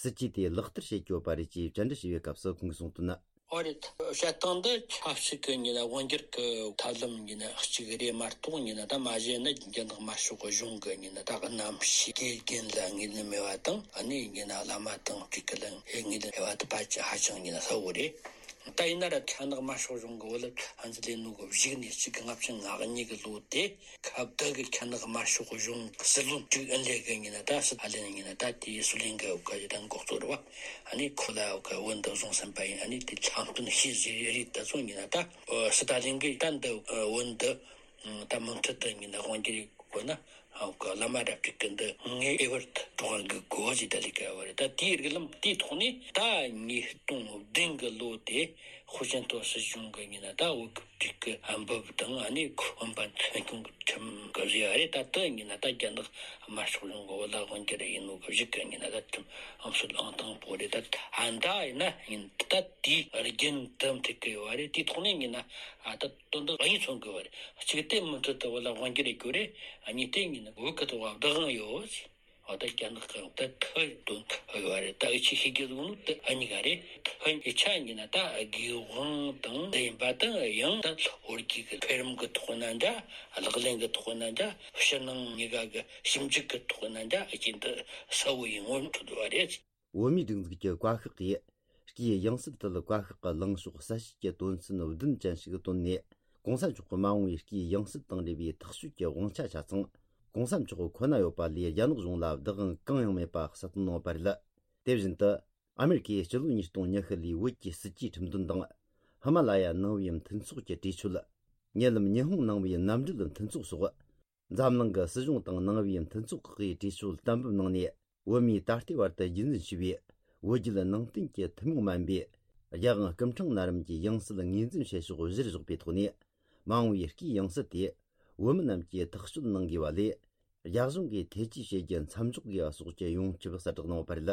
སྲིད་ཇུས་དེ་ལག་བསྟར་བྱེད་ཀྱི་ཡོད་པ་རེད་ཅེས་བཅར་འདྲི་ཞུས་པའི་སྐབས་སུ་ཁོང་གིས་གསུངས་དོན། ཨོ་རེད། བཤད་སྟངས་འདི་ཆབ་སྲིད་ཀྱི་ཉིན་ན་དབང་སྒྱུར་གྱི་ཐབས་ལམ་ཉིན་ན་གཅིག་རེད་མ་གཏོགས། ཉིན་ན་ད་མ་གཞི་ནི་རྒྱ་ནག་དམར་ཤོག་གི་གཞུང་གི་ཉིན་ན་ད་རྣམ་ཤེས་དགེ་རྒན་ལ་ངོས་ལེན་མེད་པ་དང་། ཨ་ནི་ཉིན་ན་བླ་མ་དང་སྤྲུལ་སྐུ་ལ་ངོས་ལེན་མེད་པ་དེ་ཕལ་ཆེར་ཧ་ཅང་ཉིན་ན་གསལ་བོ་རེད། ད་ཡིན་ན་ར་རྒྱ་ནག་དམར་ཤོག་གཞུང་གི་བོད་ལ་ཕན་ཚུན་ལས་ནོ་གི་བཞུགས་ནས་གཅིག་གི་ལྔ་བཅུ་ང་གཉིས་ཀྱི་ལོ་དེ། ཁ་བརྡ་གི་རྒྱ་ནག་དམར་ཤོག་གཞུང་གི་སྲིད་བློན་ཀྲིག་ཨིན་ལེ་གི་ཉིན་ན་ད་སི་ཏཱ་ལིན་ཉིན་ན་ད་དེའི་སུ་ལིན་གི་འོག་གི་ད་འགོ་གཙོ་རེད་བ། ཨ་ནི་ཁོ་ལ་འོག་གི་བོད་འདི་བཟུང་ཟིན་པ་ཡིན། ཨ་ནི་དེ་ལྷག་དོན་ཤེས་ཟིན་རེད། ད་སོང་ཉིན་ན་ད་སི་ཏཱ་ལིན་གི་ད་འདི་བོད་འདི་ད་མུ་མཐུད་དུ་ཉིན་ན་དབང་སྒྱུར་དགོས་ན། འོག་གི་བླ་མ་རབ་རྒྱས་ཀྱི་འདི་ངའི་ཨེ་བར་དུ་འགྲོ་བ་གི་གོ་ཟི་ད་ལི་ཀ་བ་རེད། ད་དེའི་རིགས་ལམ་དེའི་ཐོག་ནས་ད་ཉིས་སྟོང་བདུན་གི་ལོ་དེ་ཧུའུ་ཅིན་ཐའོ་སྲིད་གཞུང་གི་ཉིན་ན་ད་འོག་གི་ཀྲིག་གི་འབུབ་དང་། ཨ་ནི་ཁོ་འབབ་ཐོན་ཁུངས་ཀྱི་ཁྲིམས་ཀྱི་བཟོས་ཡ་རེད། ད་དེ་ཉིན་ན་ད་རྒྱ་ནག་དམར་ཤོག་གཞུང་གི་བོད་ལ་དབང་སྒྱུར་ཡིན་ནོ་གི་གཞུག་གི་ཉིན་ན་ད་ཁྲིམས་ཨང་སྲོལ་ཨང་དང་པོ་རེད། ད་ཨ་འདྲ་ཡིན་ན་ཡིན་ད་དེའི་རྒྱུན་དུ་འགྲིག་གི་ཡོད་རེད། དེའི་ཐོག་ནས་ཡིན་ན་ཨ་ད་དོན་དག་གཉིས་མཚོན་གི་ཡོད་རེད། གཅིག་དེ་མུ་མཐུད་དུ་བོད་ལ་དབང་སྒྱུར་ཡེད་རྒྱུ་རེད། གཉིས་དེ་ཡིན་ན་བོད་ཀྱི་ཐོག་བདག་དབང་ཡོད། འོ་ད་རྒྱ་ནག་གི་ད་ཐའི་དོན་ཡོད་རེད། ད་འུ་ཆོས་ཤེས་རྒྱུ་ཟིག་ནི་ད་ཨ་གཉིས་ཀ་རེད། ཐའི་ཡིག་ཆ་ཡིན་ན་ད་དགེ་དབང་དང་འདི་ཡིན་པ་དང་། ཡང་ད་ལྷོ་རྒྱུད་ཀྱི་འཕེལ་རིམ་གྱི་ཐོག་ན་འདྲ། ལག་ལེན་གྱི་ཐོག་ན་འདྲ། ཕྱི་ནང་གཉིས་ཀ་གི་ཞིབ་འཇུག་གི་ཐོག་ན་འདྲ། ཨ་ཅེ་འདི་གསལ་བོ་ཡིན་ངོ་ཐུག་འདུག་པ་རེད། བོད་མིའི་སྒྲིག་འཛུགས་ཀྱི་བཀའ་ཤག་གིས་སྐུའི་ཡང་སྲིད་དེ་བཀའ་ཤག་གི་ལངས་ཕྱོགས་གསལ་བཤད་ཀྱི་དོན་ཚན་བདུན་ཅན་ཞིག་བཏོན་ནས། གོང་ས་མཆོག་གི་མ་འོངས་པའི་སྐུའི་ཡང་སྲིད་དང་འབྲེལ་བའི་ཐག་གཅོད་ཀྱི་དབང་ཆ་ཆ་ཚང་གོང་ས་མཆོག་ཁོ་ན་ཡོད་པ་ལས་རྒྱ་ནག་གཞུང་ལ་བདག་དབང་གང་ཡང་མེད་པ་གསལ་སྟོན་གནང་བ་རེད། དེ་བཞིན་དུ། ཨ་མེ་རི་ཁའི་སྤྱི་ལོ་ཉིས་སྟོང་ཉི་ཤུ་ལོའི་བོད་ཀྱི་སྲིད་ཇུས་ཁྲིམས་དོན་དང་། ཧི་མ་ལ་ཡ་ནང་པའི་མཐུན་ཚོགས་ཀྱི་གྲོས་ཆོད། ཉེ་ལམ་ཉི་ཧོང་ནང་པའི་མནའ་འབྲེལ་མཐུན་ཚོགས་སོགས། འཛམ་གླིང་གི་སྲིད་གཞུང་དང་ནང་པའི་མཐུན་ཚོགས་ཁག་གིས་གྲོས་ཆོད་གཏན་འབེབས་གནང་ནས། བོད་མིས་ད་ལྟའི་བར་དུ་རྒྱུན་འཛིན་བྱས་པའི་བོད་བརྒྱུད་ནང་བསྟན་གྱི་ཐུན་མོང་མ་ཡིན་པའི་རྒྱལ་དབང་སྐུ་ཕྲེང་ན་རིམ་གྱི་ཡང་སྲིད་ངོས་འཛིན་བྱེད་ཕྱོགས་གཞིར་བཞག་པའི་ཐོག་ནས། མ་འོངས་པའི་སྐུའི་ཡང་སྲིད་དེ་བོད་མི་རྣམས་ཀྱིས་ཐག་གཅོད་གནང་དགོས་པ་ལས། རྒྱ་གཞུང་གིས་ཐེ་ཇུས་བྱེད་རྒྱུ་མཚམས་འཇོག་དགོས་པ་སོགས་ཀྱི་ཡོངས་ཁྱབ་གསལ་བསྒྲགས་གནང་བ་རེད།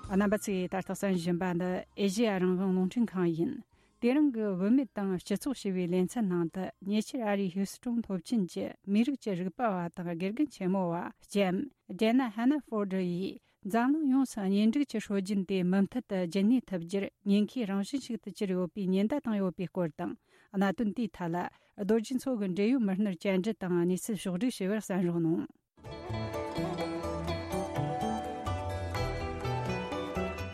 རྣམ་པ་ཚོས་ད་ལྟ་གསན་བཞིན་པ་འདི་ཨེ་ཤེ་ཡ་རང་དབང་རླུང་འཕྲིན་ཁང་ཡིན། དེ་རིང་གི་བུད་མེད་དང་སྤྱི་ཚོགས་ཞེས་པའི་ལེ་ཚན་ནང་དུ། ཉེ་ཆར་ཨ་རིའི་ཧིའུ་སི་ཀྲོན་སློབ་ཆེན་གྱི་མིའི་རིགས་ཀྱི་རིག་པ་བ་དང་དགེ་རྒན་ཆེན་མོ་བ་ལྕམ་ཇེ་ན་ཧ་ན་ཧྥོར་ཌི་ཡིས། འཛམ་གླིང་ཡོངས་སུ་གཉེན་སྒྲིག་གི་སྲོལ་རྒྱུན་དེ་མུ་མཐུད་དུ་རྒྱུན་གནས་ཐུབ་རྒྱུར་ཉེན་ཁའི་རང་བཞིན་ཞིག་ཏུ་གྱུར་ཡོད་པའི་ཉེན་བརྡ་བཏང་ཡོད་པའི་སྐོར་དང་། གནད་དོན་དེའི་ཐད་ལ་རྡོ་རྗེ་མཚོ་གི་འབྲེལ་ཡོད་མི་སྣར་བཅར་འདྲི་དང་གནས་ཚུལ་ཕྱོགས་བསྒྲིགས་བྱས་པར་གསན་རོགས་གནང་།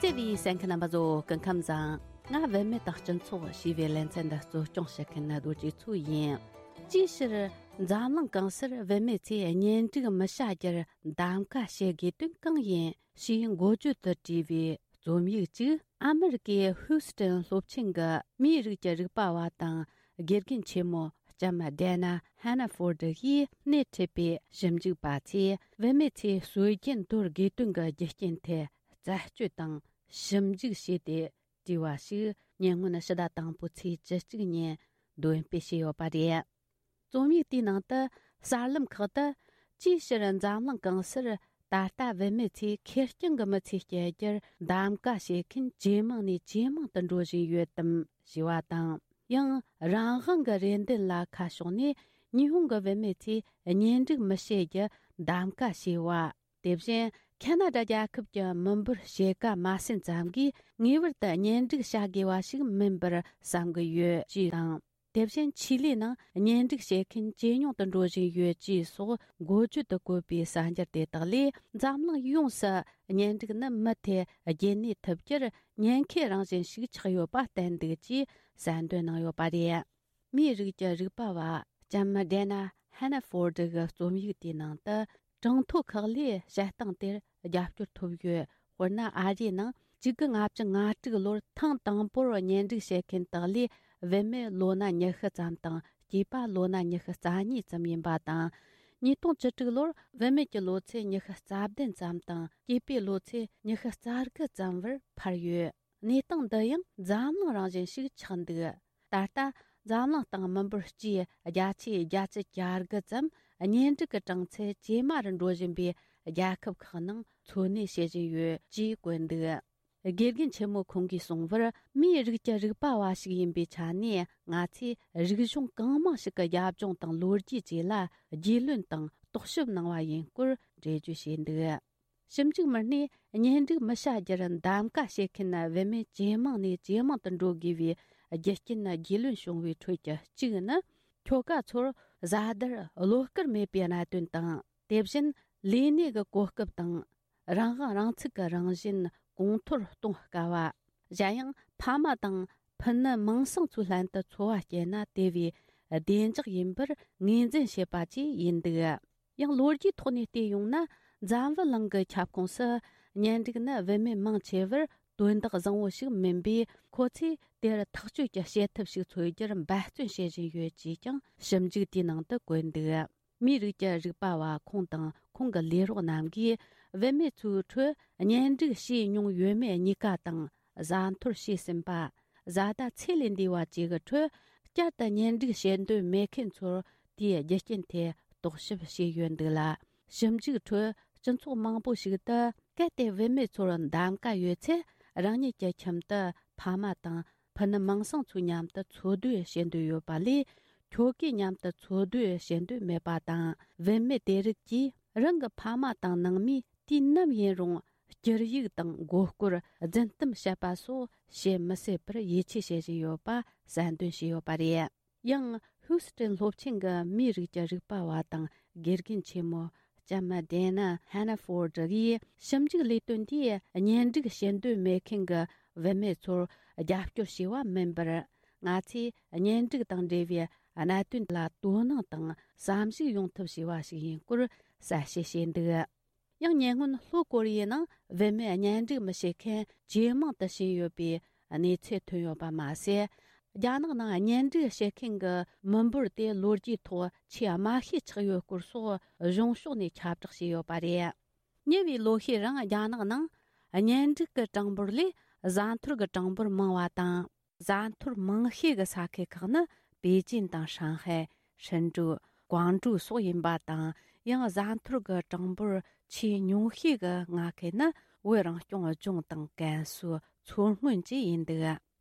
བརྩེ་བའི་གསན་མཁན་རྣམ་པ་ཚོ། སྐུ་ཁམས་བཟང་། ང་བུད་མེད་དང་སྤྱི་ཚོགས་ཞེས་པའི་ལེ་ཚན་འདི་གཙོ་སྐྱོང་བྱེད་མཁན་རྡོ་རྗེ་མཚོ་ཡིན། ཅིའི་ཕྱིར་འཛམ་གླིང་གང་སར་བུད་མེད་ཚོས་གཉེན་སྒྲིག་མི་བྱ་རྒྱུར་གདམ་ག་བྱེད་དགོས་དོན་གང་ཡིན་ཞེས་འགོ་བརྗོད་དུ་བྲིས་པའི་རྩོམ་ཡིག་ཅིག་ཨ་མེ་རི་ཀའི་ཧུའུ་སི་ཀྲན་སློབ་ཆེན་གྱི་མིའི་རིགས་ཀྱི་རིག་པ་བ་དང་དགེ་རྒན་ཆེན་མོ་ ལྕམ་ཌེ་ན་ཧན་ན་ཧྥོར་ཌི་ཡིས་སྣེ་ཁྲིད་པའི་ཞིབ་འཇུག་པ་ཚོས་བུད་མེད་ཚོས་སྲོལ་རྒྱུན་དོར་དགོས་དོན་གྱི་རྒྱུ་རྐྱེན་དེ་རྩད་གཅོད་དང་ཞིབ་འཇུག་བྱས་ཏེ་བྲིས་པ་ཞིག་ཉེ་སྔོན་ཕྱི་ཟླ་དང་པོའི་ཚེས་བཅུ་གཅིག་ཉིན་འདོན་སྤེལ་བྱས་ཡོད་པ་རེད། རྩོམ་ཡིག་དེའི་ནང་དུ་གསར་ལམ་ཁག་ཏུ་ཅིའི་ཕྱིར་འཛམ་གླིང་གང་སར་ད་ལྟ་བུད་མེད་ཚོས་ཁེར་རྐྱང་གི་མི་ཚེ་སྐྱེལ་རྒྱུར་གདམ་ག་བྱེད་མཁན་ཇེ་མང་ནས་ཇེ་མང་དུ་འགྲོ་བཞིན་ཡོད་དམ་ཞེས་པ་དང་། ཡང་རང་དབང་གི་རེ་འདུན་ལ་ཁ་ཕྱོགས་ནས་ཉི་ཧོང་གི་བུད་མེད་ཚོས་གཉེན་སྒྲིག་མི་བྱེད་རྒྱུ་གདམ་ག་བྱས་པ། དེ་བཞིན་ཁ་ན་ཌ་རྒྱལ་ཁབ་ཀྱི་མི་འབོར་ཕྱེད་ཀ་མ་ཟིན་ཙམ་གྱིས་ངེས་པར་དུ་གཉེན་སྒྲིག་བྱ་དགོས་པ་ཞིག་མིན་པར་བསམ་གྱི་ཡོད་ཅེས་དང་། དེ་བཞིན་ཆི་ལི་ནང་གཉེན་སྒྲིག་བྱེད་མཁན་ཇེ་ཉུང་དུ་འགྲོ་བཞིན་ཡོད་ཅེས་སོགས་འགོ་བརྗོད་དུ་བཀོད་པའི་གསར་འགྱུར་དེ་དག་ལས་འཛམ་གླིང་ཡོངས་སུ་གཉེན་སྒྲིག་ནི་མུ་མཐུད་རྒྱུན་གནས་ཐུབ་རྒྱུར་ཉེན་ཁའི་རང་བཞིན་ཞིག་ཆགས་ཡོད་པ་བསྟན་འདུག་ཅེས་གསལ་འདོན་གནང་ཡོད་པ་རེད། མིའི་རིགས་ཀྱི་རིག་པ་བ་ལྕམ་ཌེ་ན་ཧན་ན་ཧྥོར་ཌི་གི་རྩོམ་ཡིག་དེའི་ནང་དུ། གྲངས་ཐོ་ཁག་ལས་བཤད་སྟངས་དེར་རྒྱབ་སྐྱོར་ཐོབ་ཡོད། དཔེར་ན། ཨ་རིའི་ནང་གཅིག་དགུ་ལྔ་བཅུ་ང་དྲུག་ལོར་ཐེངས་དང་པོར་གཉེན་སྒྲིག་བྱེད་མཁན་དག་ལས་བུད་མེད་ལོ་ན་ཉི་ཤུ་ཙམ་དང་སྐྱེས་པ་ལོ་ན་ཉི་ཤུ་རྩ་གཉིས་ཙམ་ཡིན་པ་དང་། ཉིས་སྟོང་བཅུ་དྲུག་ལོར་བུད་མེད་ཀྱི་ལོ་ཚད་ཉི་ཤུ་རྩ་བདུན་ཙམ་དང་སྐྱེས་པའི་ལོ་ཚད་ཉི་ཤུ་རྩ་དགུ་ཙམ་བར་འཕར་ཡོད། གནས་སྟངས་འདི་ཡང་འཛམ་གླིང་རང་བཞིན་ཞིག་ཆགས་འདུག་ད་ལྟ་འཛམ་གླིང་སྟེང་མི་འབོར་སྤྱིའི་བརྒྱ་ཆའི་བརྒྱད་ཅུ་གྱ་དགུ་ཙམ་གཉེན་སྒྲིག་གི་གྲངས་ཚད་ཇེ་དམའ་རུ་འགྲོ་བཞིན་པའི་རྒྱལ་ཁབ་ཁག་ནང་འཚོ་གནས་བྱེད་བཞིན་ཡོད་ཅེས་བཀོད་འདུག་དགེ་རྒན་ཆེན་མོ་ཁོང་གིས་གསུངས་པར། མིའི་རིགས་ཀྱི་རིག་པ་བ་ཞིག་ཡིན་པའི་ཆ་ནས། ང་ཚོས་རིག་གཞུང་གང་མང་ཞིག་གི་རྒྱབ་ལྗོངས་དང་ལོ་རྒྱུས་བཅས་ལ་རྒྱུས་ལོན་དང་རྟོག་ཞིབ་གནང་བ་ཡིན་སྐོར་འགྲེལ་བརྗོད་བྱས་འདུག་ཞིབ་འཇུག་མི་སྣས་གཉེན་སྒྲིག་མི་བྱ་རྒྱུར་གདམ་ག་བྱེད་མཁན་བུད་མེད་ཇེ་མང་ནས་ཇེ་མང་དུ་འགྲོ་དགོས་པའི་རྒྱུ་རྐྱེན་རྒྱུས་ལོན་བྱུང་བའི་ཁྲོད་ཀྱི་གཅིག་ནི། ཁྱོ་ག་ཚོར་བཟའ་ཟླར་བློ་དཀར་མེད་པའི་གནད་དོན་དང་། དེ་བཞིན་ལས་གནས་ཀྱི་གོ་སྐབས་དང་། རང་དབང་རང་ཚུགས་ཀྱི་རང་བཞིན་གོང་མཐོར་གཏོང་དཀའ་བ། གཞན་ཡང་ཕ་མ་དང་ཕུ་ནུ་མིང་སྲིང་ཚོའི་ལྷན་དུ་འཚོ་བ་སྐྱེལ་ན་དེ་བས་བདེ་འཇགས་ཡིན་པར་ངོས་འཛིན་བྱེད་པ་བཅས་ཡིན་འདུག་ཡང་ལོ་རྒྱུས་ཐོག་ནས་བལྟས་ཡོང་ན། འཛམ་བུ་གླིང་གི་ཁྱབ་ཁོངས་སུ་གཉེན་སྒྲིག་ནི་བུད་མེད་མང་ཆེ་བར་དོན་དག་བཟང་བོ་ཞིག་མིན་པས། ཁོ་ཚོས་དེར་ཐག་གཅོད་ཀྱི་བྱེད་ཐབས་ཤིག་འཚོལ་རྒྱུར་འབད་བརྩོན་བྱེད་བཞིན་ཡོད་ཅེས་ཀྱང་ཞིབ་འཇུག་དེའི་ནང་དུ་བཀོད་འདུག་མིའི་རིགས་ཀྱི་རིག་པ་བ་ཁོང་དང་ཁོང་གི་ལས་རོགས་རྣམས་ཀྱིས། བུད་མེད་ཚོའི་ཁྲོད་གཉེན་སྒྲིག་བྱས་མྱོང་ཡོད་མེད་གཉིས་ཀ་དང་། བཟའ་འཐོར་བྱས་ཟིན་པ། བཟའ་ཟླ་ཚེ་ལས་འདས་པ་བཅས་ཀྱི་ཁྲོད། བསྐྱར་དུ་གཉེན་སྒྲིག་བྱེད་འདོད་མེད་མཁན་ཚོར་དེའི་རྒྱུ་རྐྱེན་ཐད་རྟོག་ཞིབ་བྱས་ཡོད་འདུག་ལ། ཞིབ་འཇུག་ཁྲོད་སྤྱི་ཚོགས་མང་པོ་ཞིག་ཏུ། གལ་ཏེ་བུད་མེད་ཚོར་གདམ་ག་ཡོད་ཚེ། རང་ཉིད་ཀྱི་ཁྱིམ་དུ་ཕ་མ་དང་ཕུ་ནུ་མིང་སྲིང་ཚོའི་མཉམ་དུ་འཚོ་སྡོད་བྱེད་འདོད་ཡོད་པ་ལས། ཁྱོ་གའི་མཉམ་དུ་འཚོ་སྡོད་བྱེད་འདོད་མེད་པ་དང་། བུད་མེད་དེ་རིགས་ཀྱིས་རང་གི་ཕ་མ་དང་ནང་མིས་དུས་ནམ་ཡིན་རུང་། སྐྱུར་ཡིག་དང་མགོ་སྐོར། རྫུན་གཏམ་བཤད་པ་སོགས་བྱེད་མི་སྲིད་པར་ཡིད་ཆེས་བྱེད་བཞིན་ཡོད་པ་གསལ་འདོན་བྱས་ཡོད་པ་རེད། ཡང་ཧུའུ་སི་ཀྲན་སློབ་ཆེན་གྱི་མིའི་རིགས་ཀྱི་རིག་པ་བ་དང་དགེ་རྒན་ཆེན་མོ་ལྕམ་ཌེ་ན་ཧན་ན་ཧྥོར་ཌི་ཡིས། ཞིབ་འཇུག་ལས་དོན་འདིས་གཉེན་སྒྲིག་བྱེད་འདོད་མེད་མཁན་གྱི་བུད་མེད་ཚོར་རྒྱབ་སྐྱོར་བྱས་པ་མིན་པར། ང་ཚོས་གཉེན་སྒྲིག་དང་འབྲེལ་བའི་གནད་དོན་ལ་དོ་སྣང་དང་བསམ་གཞིག་ཡོང་ཐབས་བྱས་པ་ཞིག་ཡིན་སྐོར་གསལ་བཤད་བྱས་འདུག་ཡང་ཉེ་སྔོན་ལྷོ་ཀོ་རི་ཡའི་ནང་བུད་མེད་གཉེན་སྒྲིག་མི་བྱེད་མཁན་ཇེ་མང་དུ་ཕྱིན་ཡོད་པའི་གནས་ཚུལ་ཐོན་ཡོད་པ་མ་ཟད། རྒྱ་ནག་ནང་གཉེན་སྒྲིག་བྱེད་མཁན་གྱི་མི་འབོར་དེ་ལོ་རྒྱུས་ཐོག་ཆེས་དམའ་ཤོས་ཆགས་ཡོད་སྐོར་སོགས་གཞུང་ཕྱོགས་ནས་ཁྱབ་བསྒྲགས་བྱས་ཡོད་པ་རེད། ཉེ་བའི་ལོ་ཤས་རིང་རྒྱ་ནག་ནང་གཉེན་སྒྲིག་གི་གྲངས་འབོར་ལས་བཟའ་འཐོར་གྱི་གྲངས་འབོར་མང་བ་དང་། བཟའ་འཐོར་མང་ཤོས་ཀྱི་ས་ཁུལ་ཁག་ནི་པེ་ཅིན་དང་ཧྲང་ཧའེ། ཧྲིན་ཀྲུའུ། ཀོང་ཀྲུའུ་སོགས་ཡིན་པ་དང་། ཡང་བཟའ་འཐོར་གྱི་གྲངས་འབོར་ཆེས་ཉུང་ཤོས་ཀྱི་མངའ་ཁུལ་ནི་བོད་རང་སྐྱོང་ལྗོངས་དང་ཀན་སུའུ། མཚོ་སྔོན་བཅས་ཡིན་འདུག་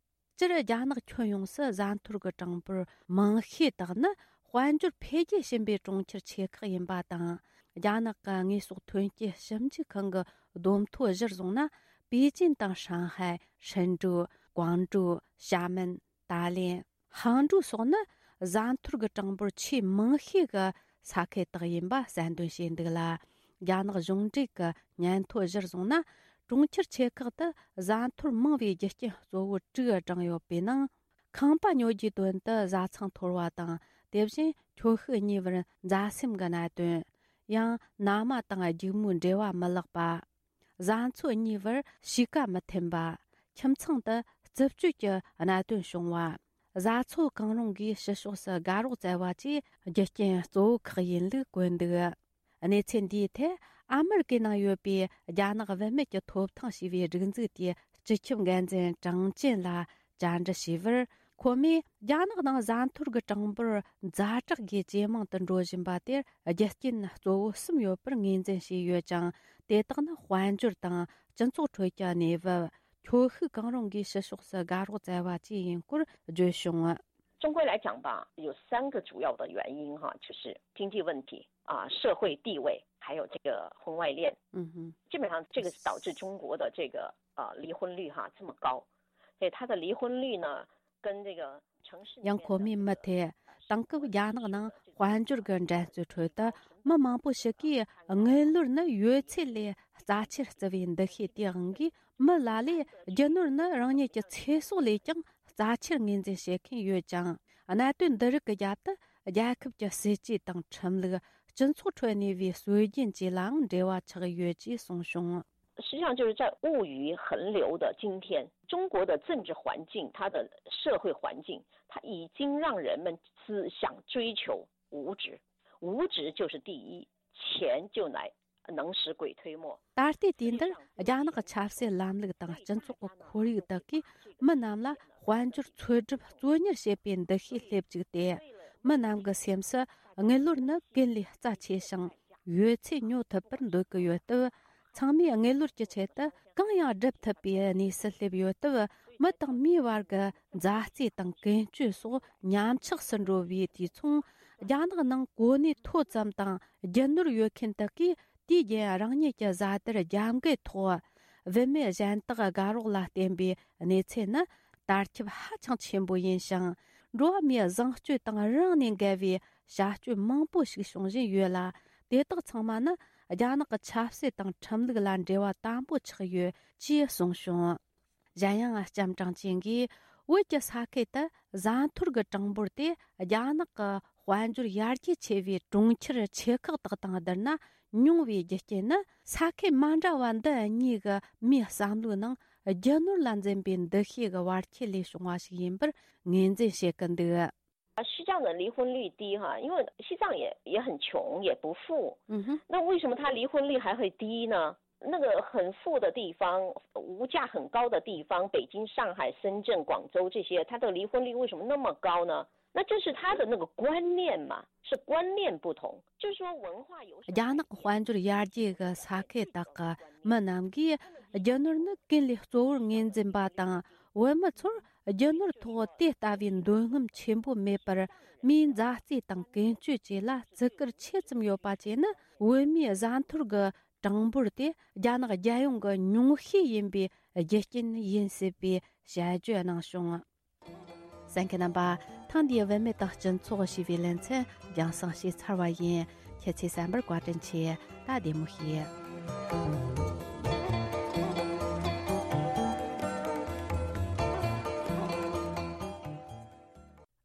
སྤྱིར་རྒྱ་ནག་ཁྱོན་ཡོངས་སུ་བཟའ་འཐོར་གྱི་གྲངས་འབོར་མང་ཤོས་དག་ནི་དཔལ་འབྱོར་འཕེལ་རྒྱས་ཕྱིན་པའི་གྲོང་ཁྱེར་ཆེ་ཁག་ཡིན་པ་དང་། རྒྱ་ནག་གི་དངོས་ཟོག་ཐོན་སྐྱེད་ཞིབ་འཇུག་ཁང་གི་བསྡོམས་ཐོ་གཞིར་བཟུང་ན། པེ་ཅིན་དང་ཧྲང་ཧའེ། ཧྲིན་ཀྲུའུ། ཀོང་ཀྲུའུ། ཞྭ་མེན། ཏཱ་ལེན། ཧང་ཀྲུའུ་སོགས་ནི་བཟའ་འཐོར་གྱི་གྲངས་འབོར་ཆེས་མང་ཤོས་ཀྱི་ས་ཁུལ་དག་ཡིན་པ་གསལ་འདོན་བྱས་འདུག་ལ། རྒྱ་ནག་གཞུང་འབྲེལ་གྱི་སྙན་ཐོ་གཞིར་བཟུང་ན། གྲོང་ཁྱེར་ཆེ་ཁག་ཏུ་བཟའ་འཐོར་མང་བའི་རྒྱུ་རྐྱེན་གཙོ་བོ་དྲུག་བགྲངས་ཡོད་པའི་ནང་། ཁང་པ་ཉོ་རྒྱུའི་དོན་དུ་བཟའ་ཚང་འཐོར་བ་དང་། དེ་བཞིན་ཁྱོ་ཤུག་གཉིས་བར་མཛའ་སེམས་ཀྱི་གནད་དོན། ཡང་མནའ་མ་དང་སྒྱིག་མོའི་འབྲེལ་བ་མི་ལེགས་པ། བཟའ་ཚང་གཉིས་བར་གཤིས་ཀ་མི་མཐུན་པ། ཁྱིམ་ཚང་དུ་རྩུབ་སྤྱོད་ཀྱི་གནད་དོན་བྱུང་བ། བཟའ་ཚོ་གང་རུང་གིས་ཕྱི་ཕྱོགས་སུ་དགའ་རོགས་བཙལ་བ་བཅས་རྒྱུ་རྐྱེན་གཙོ་བོ་ཁག་ཡིན་ལུགས་བཀོད་འདུག། གནས་ཚུལ་འདིའི་ཐད་ཨ་མེ་རི་ཀའི་ནང་ཡོད་པའི་རྒྱ་ནག་བུད་མེད་ཀྱི་ཐོབ་ཐང་ཞེས་པའི་སྒྲིག་འཛུགས་དེའི་སྤྱི་ཁྱབ་འགན་འཛིན་ཀྲང་ཅན་ལ་བཅར་འདྲི་ཞུས་པར། ཁོ་མོས་རྒྱ་ནག་ནང་བཟའ་འཐོར་གྱི་གྲངས་འབོར་ཛ་དྲག་གིས་ཇེ་མང་དུ་འགྲོ་བཞིན་པ་དེར་རྒྱུ་རྐྱེན་གཙོ་བོ་གསུམ་ཡོད་པར་ངོས་འཛིན་བྱས་ཡོད་ཅིང་། དེ་དག་ནི་དཔལ་འབྱོར་དང་སྤྱི་ཚོགས་ཁྲོད་ཀྱི་གནས་བབ། ཁྱོ་ཤུག་གང་རུང་གིས་ཕྱི་ཕྱོགས་སུ་དགའ་རོགས་བཙལ་བ་བཅས་ཡིན་སྐོར་བརྗོད་བྱུང་། 中国来讲吧，有三个主要的原因哈，就是经济问题啊、社会地位，还有这个婚外恋。嗯哼，基本上这个是导致中国的这个呃离婚率哈这么高。所以它的离婚率呢，跟这个城市里面的 ཡང་ཁོ་མོས་མུ་མཐུད། དེང་སྐབས་རྒྱ་ནག་ནང་དཔལ་འབྱོར་གྱི་འགྲན་རྩོད་ཁྲོད་དུ། མི་མང་པོ་ཞིག་གིས་དངུལ་ལོར་ནི་ཡོད་ཚད་ལས་རྩ་ཆེར་བརྩི་བའི་འདུ་ཤེས་དེའི་དབང་གིས། མི་ལ་ལས་རྒྱུ་ནོར་ནི་རང་ཉིད་ཀྱི་ཚེ་སྲོག་ལས་ཀྱང་རྩ་ཆེར་ངོས་འཛིན་བྱེད་མཁན་ཡོད་ཅིང་། གནད་དོན་འདི་རིགས་ཀྱི་རྒྱབ་ཏུ་རྒྱལ་ཁབ་ཀྱི་སྲིད་ཇུས་དང་ཁྲིམས་ལུགས། སྤྱི་ཚོགས་ཁྲོད་གནས་པའི་སྲོལ་རྒྱུན་བཅས་ལའང་འབྲེལ་བ་ཆགས་ཡོད་ཅེས་གསུངས་བྱུང་། 实际上就是在物欲横流的今天，中国的政治环境，它的社会环境，它已经让人们只想追求物质，物质就是第一，钱就来能使鬼推磨。 ད་ལྟའི་དུས་འདིར་རྒྱ་ནག་གི་ཆབ་སྲིད་ལམ་ལུགས་དང་སྤྱི་ཚོགས་ཀྱི་ཁོར་ཡུག་དག་གིས་མི་རྣམས་ལ་དཔལ་འབྱོར་འཚོལ་སྒྲུབ་གཙོ་གཉེར་བྱེད་པའི་འདུ་ཤེས་སླེབས་བཅུག་སྟེ། མི་རྣམས་ཀྱི་སེམས་སུ་དངུལ་ལོར་ནི་ཀུན་ལས་རྩ་ཆེ་ཞིང་ཡོད་ཚད་ཉོ་ཐུབ་པར་འདོད་ཀྱི་ཡོད་སྟབས། ཚང་མས་དངུལ་ལོར་གྱི་ཆེད་དུ་གང་ཡང་སྒྲུབ་ཐུབ་པའི་གནས་སུ་སླེབས་ཡོད་སྟབས། མི་དང་མིའི་བར་གྱི་མཛའ་བརྩེ་དང་ཀུན་སྤྱོད་སོགས་ཉམས་ཆག་སུ་འགྲོ་བའི་དུས་མཚུངས། རྒྱ་ནག་ནང་གོ་གནས་མཐོ་ཙམ་དང་རྒྱུ་ནོར་ཡོད་མཁན་དག་གིས་དུས་རྒྱུན་རང་ཉིད་ཀྱི་བཟའ་དར་རྒྱབ་འགལ་ཐོག་བུད་མེད་གཞན་དག་དགའ་རོགས་ལ་བརྟེན་པའི་གནས་ཚུལ་ནི་དར་ཁྱབ་ཧ་ཅང་ཆེན་པོ་ཡིན་ཞིང་། འགྲོ་བ་མིའི་བཟང་སྤྱོད་དང་རང་ནས་འགལ་བའི་བྱ་སྤྱོད་མང་པོ་ཞིག་བྱུང་བཞིན་ཡོད་ལ། དེ་དག་ཚང་མ་ནི་རྒྱ་ནག་གི་ཆབ་སྲིད་དང་ཁྲིམས་ལུགས་ལ་འབྲེལ་བ་དམ་པོ་ཆགས་ཡོད་ཅེས་གསུངས་བྱུང་། གཞན་ཡང་ལྕམ་ཀྲང་ཅིན་གྱིས་བོད་ཀྱི་ས་ཁུལ་དུ་བཟའ་འཐོར་གྱི་གྲངས་འབོར་དེ་རྒྱ་ནག་གི་དཔལ་འབྱོར་ཡར་རྒྱས་ཆེ་བའི་གྲོང་ཁྱེར་ཆེ་ཁག་དག་དང་བསྡུར་ན་ཉུང་བའི་རྒྱུ་རྐྱེན་ནི། ས་ཁུལ་མ་འདྲ་བ་འདི་གཉིས་ཀྱི་མིའི་བསམ་བློའི་ནང་རྒྱུ་ནོར་ལ་འཛིན་པའི་འདུ་ཤེས་ཀྱི་བར་ཁྱད་ལས་བྱུང་བ་ཞིག་ཡིན་པར་ངོས་འཛིན་བྱེད་ཀྱི་འདུག། 西藏的离婚率低哈，因为西藏也也很穷，也不富。嗯哼，那为什么他离婚率还会低呢？那个很富的地方，物价很高的地方，北京、上海、深圳、广州这些，它的离婚率为什么那么高呢？那就是他的那个观念嘛，是观念不同，就是说文化有什么。 རྒྱ་ནག་དཔལ་འབྱོར་ཡར་རྒྱས་ཀྱི་ས་ཁུལ་དག་གི་མི་རྣམས་ཀྱིས་རྒྱུ་ནོར་ནི་ཀུན་ལས་གཙོ་བོར་ངོས་འཛིན་པ་དང་། བོད་མི་ཚོར་རྒྱུ་ནོར་ཐོག་དེ་ལྟ་བུའི་འདོད་རྔམ་ཆེན་པོ་མེད་པར། མིའི་མཛའ་བརྩེ་དང་ཀུན་སྤྱོད་བཅས་ལ་བརྩི་བཀུར་ཆེ་ཙམ་ཡོད་པ་བཅས་ནི། བོད་མིའི་བཟའ་འཐོར་གྱི་གྲངས་འབོར་དེ་རྒྱ་ནག་རྒྱལ་ཡོངས་ཀྱི་ཉུང་ཤས་ཡིན་པའི་རྒྱུ་རྐྱེན་ཡིན་སྲིད་པའི་དཔྱད་བརྗོད་གནང་བྱུང་། གསན་མཁན་རྣམ་པ། ཐེངས་འདིའི་བུད་མེད་དང་སྤྱི་ཚོགས་ཞེས་པའི་ལེ་ཚན་རྒྱང་སྲིང་བྱས་ཚར་བ་ཡིན། ཁྱེད་ཚོས་གསན་པར་བཀའ་དྲིན་ཆེ། ད་བདེ་མོ་བྱོས།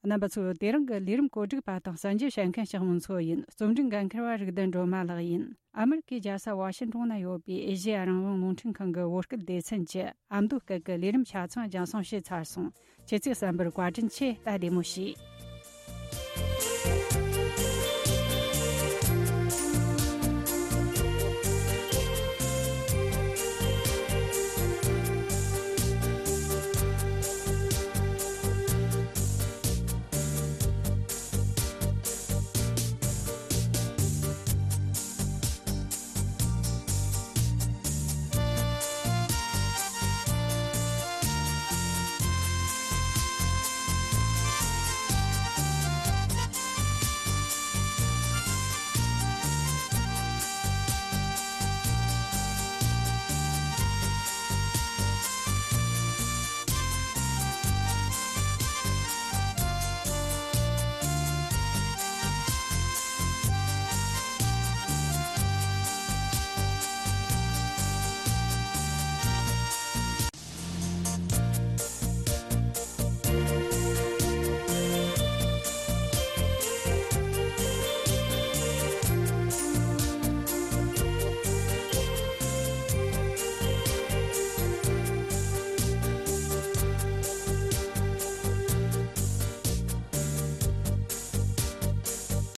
རྣམ་པ་ཚོ། དེ་རིང་གི་ལས་རིམ་གོ་སྒྲིག་པ་དང་གསན་རྒྱུ་བྱེད་མཁན་ཞག་མོ་མཚོ་ཡིན། རྩོམ་སྒྲིག་འགན་འཁུར་བ་རིག་ལྡན་སྒྲོལ་མ་ལགས་ཡིན། ཨ་མེ་རི་ཀའི་རྒྱལ་ས་ཝ་ཤིན་ཏོན་ན་ཡོད་པའི་ཨེ་ཤེ་ཡ་རང་དབང་རླུང་འཕྲིན་ཁང་གི་བོད་སྐད་སྡེ་ཚན་གྱི་ཨ་མདོ་སྐད་ཀྱི་ལས་རིམ་ཆ་ཚང་རྒྱང་སྲིང་བྱས་ཚར་སོང་། ཁྱེད་ཚོས་གསན་པར་བཀའ་དྲིན་ཆེ། ད་བདེ་མོ་བྱོས།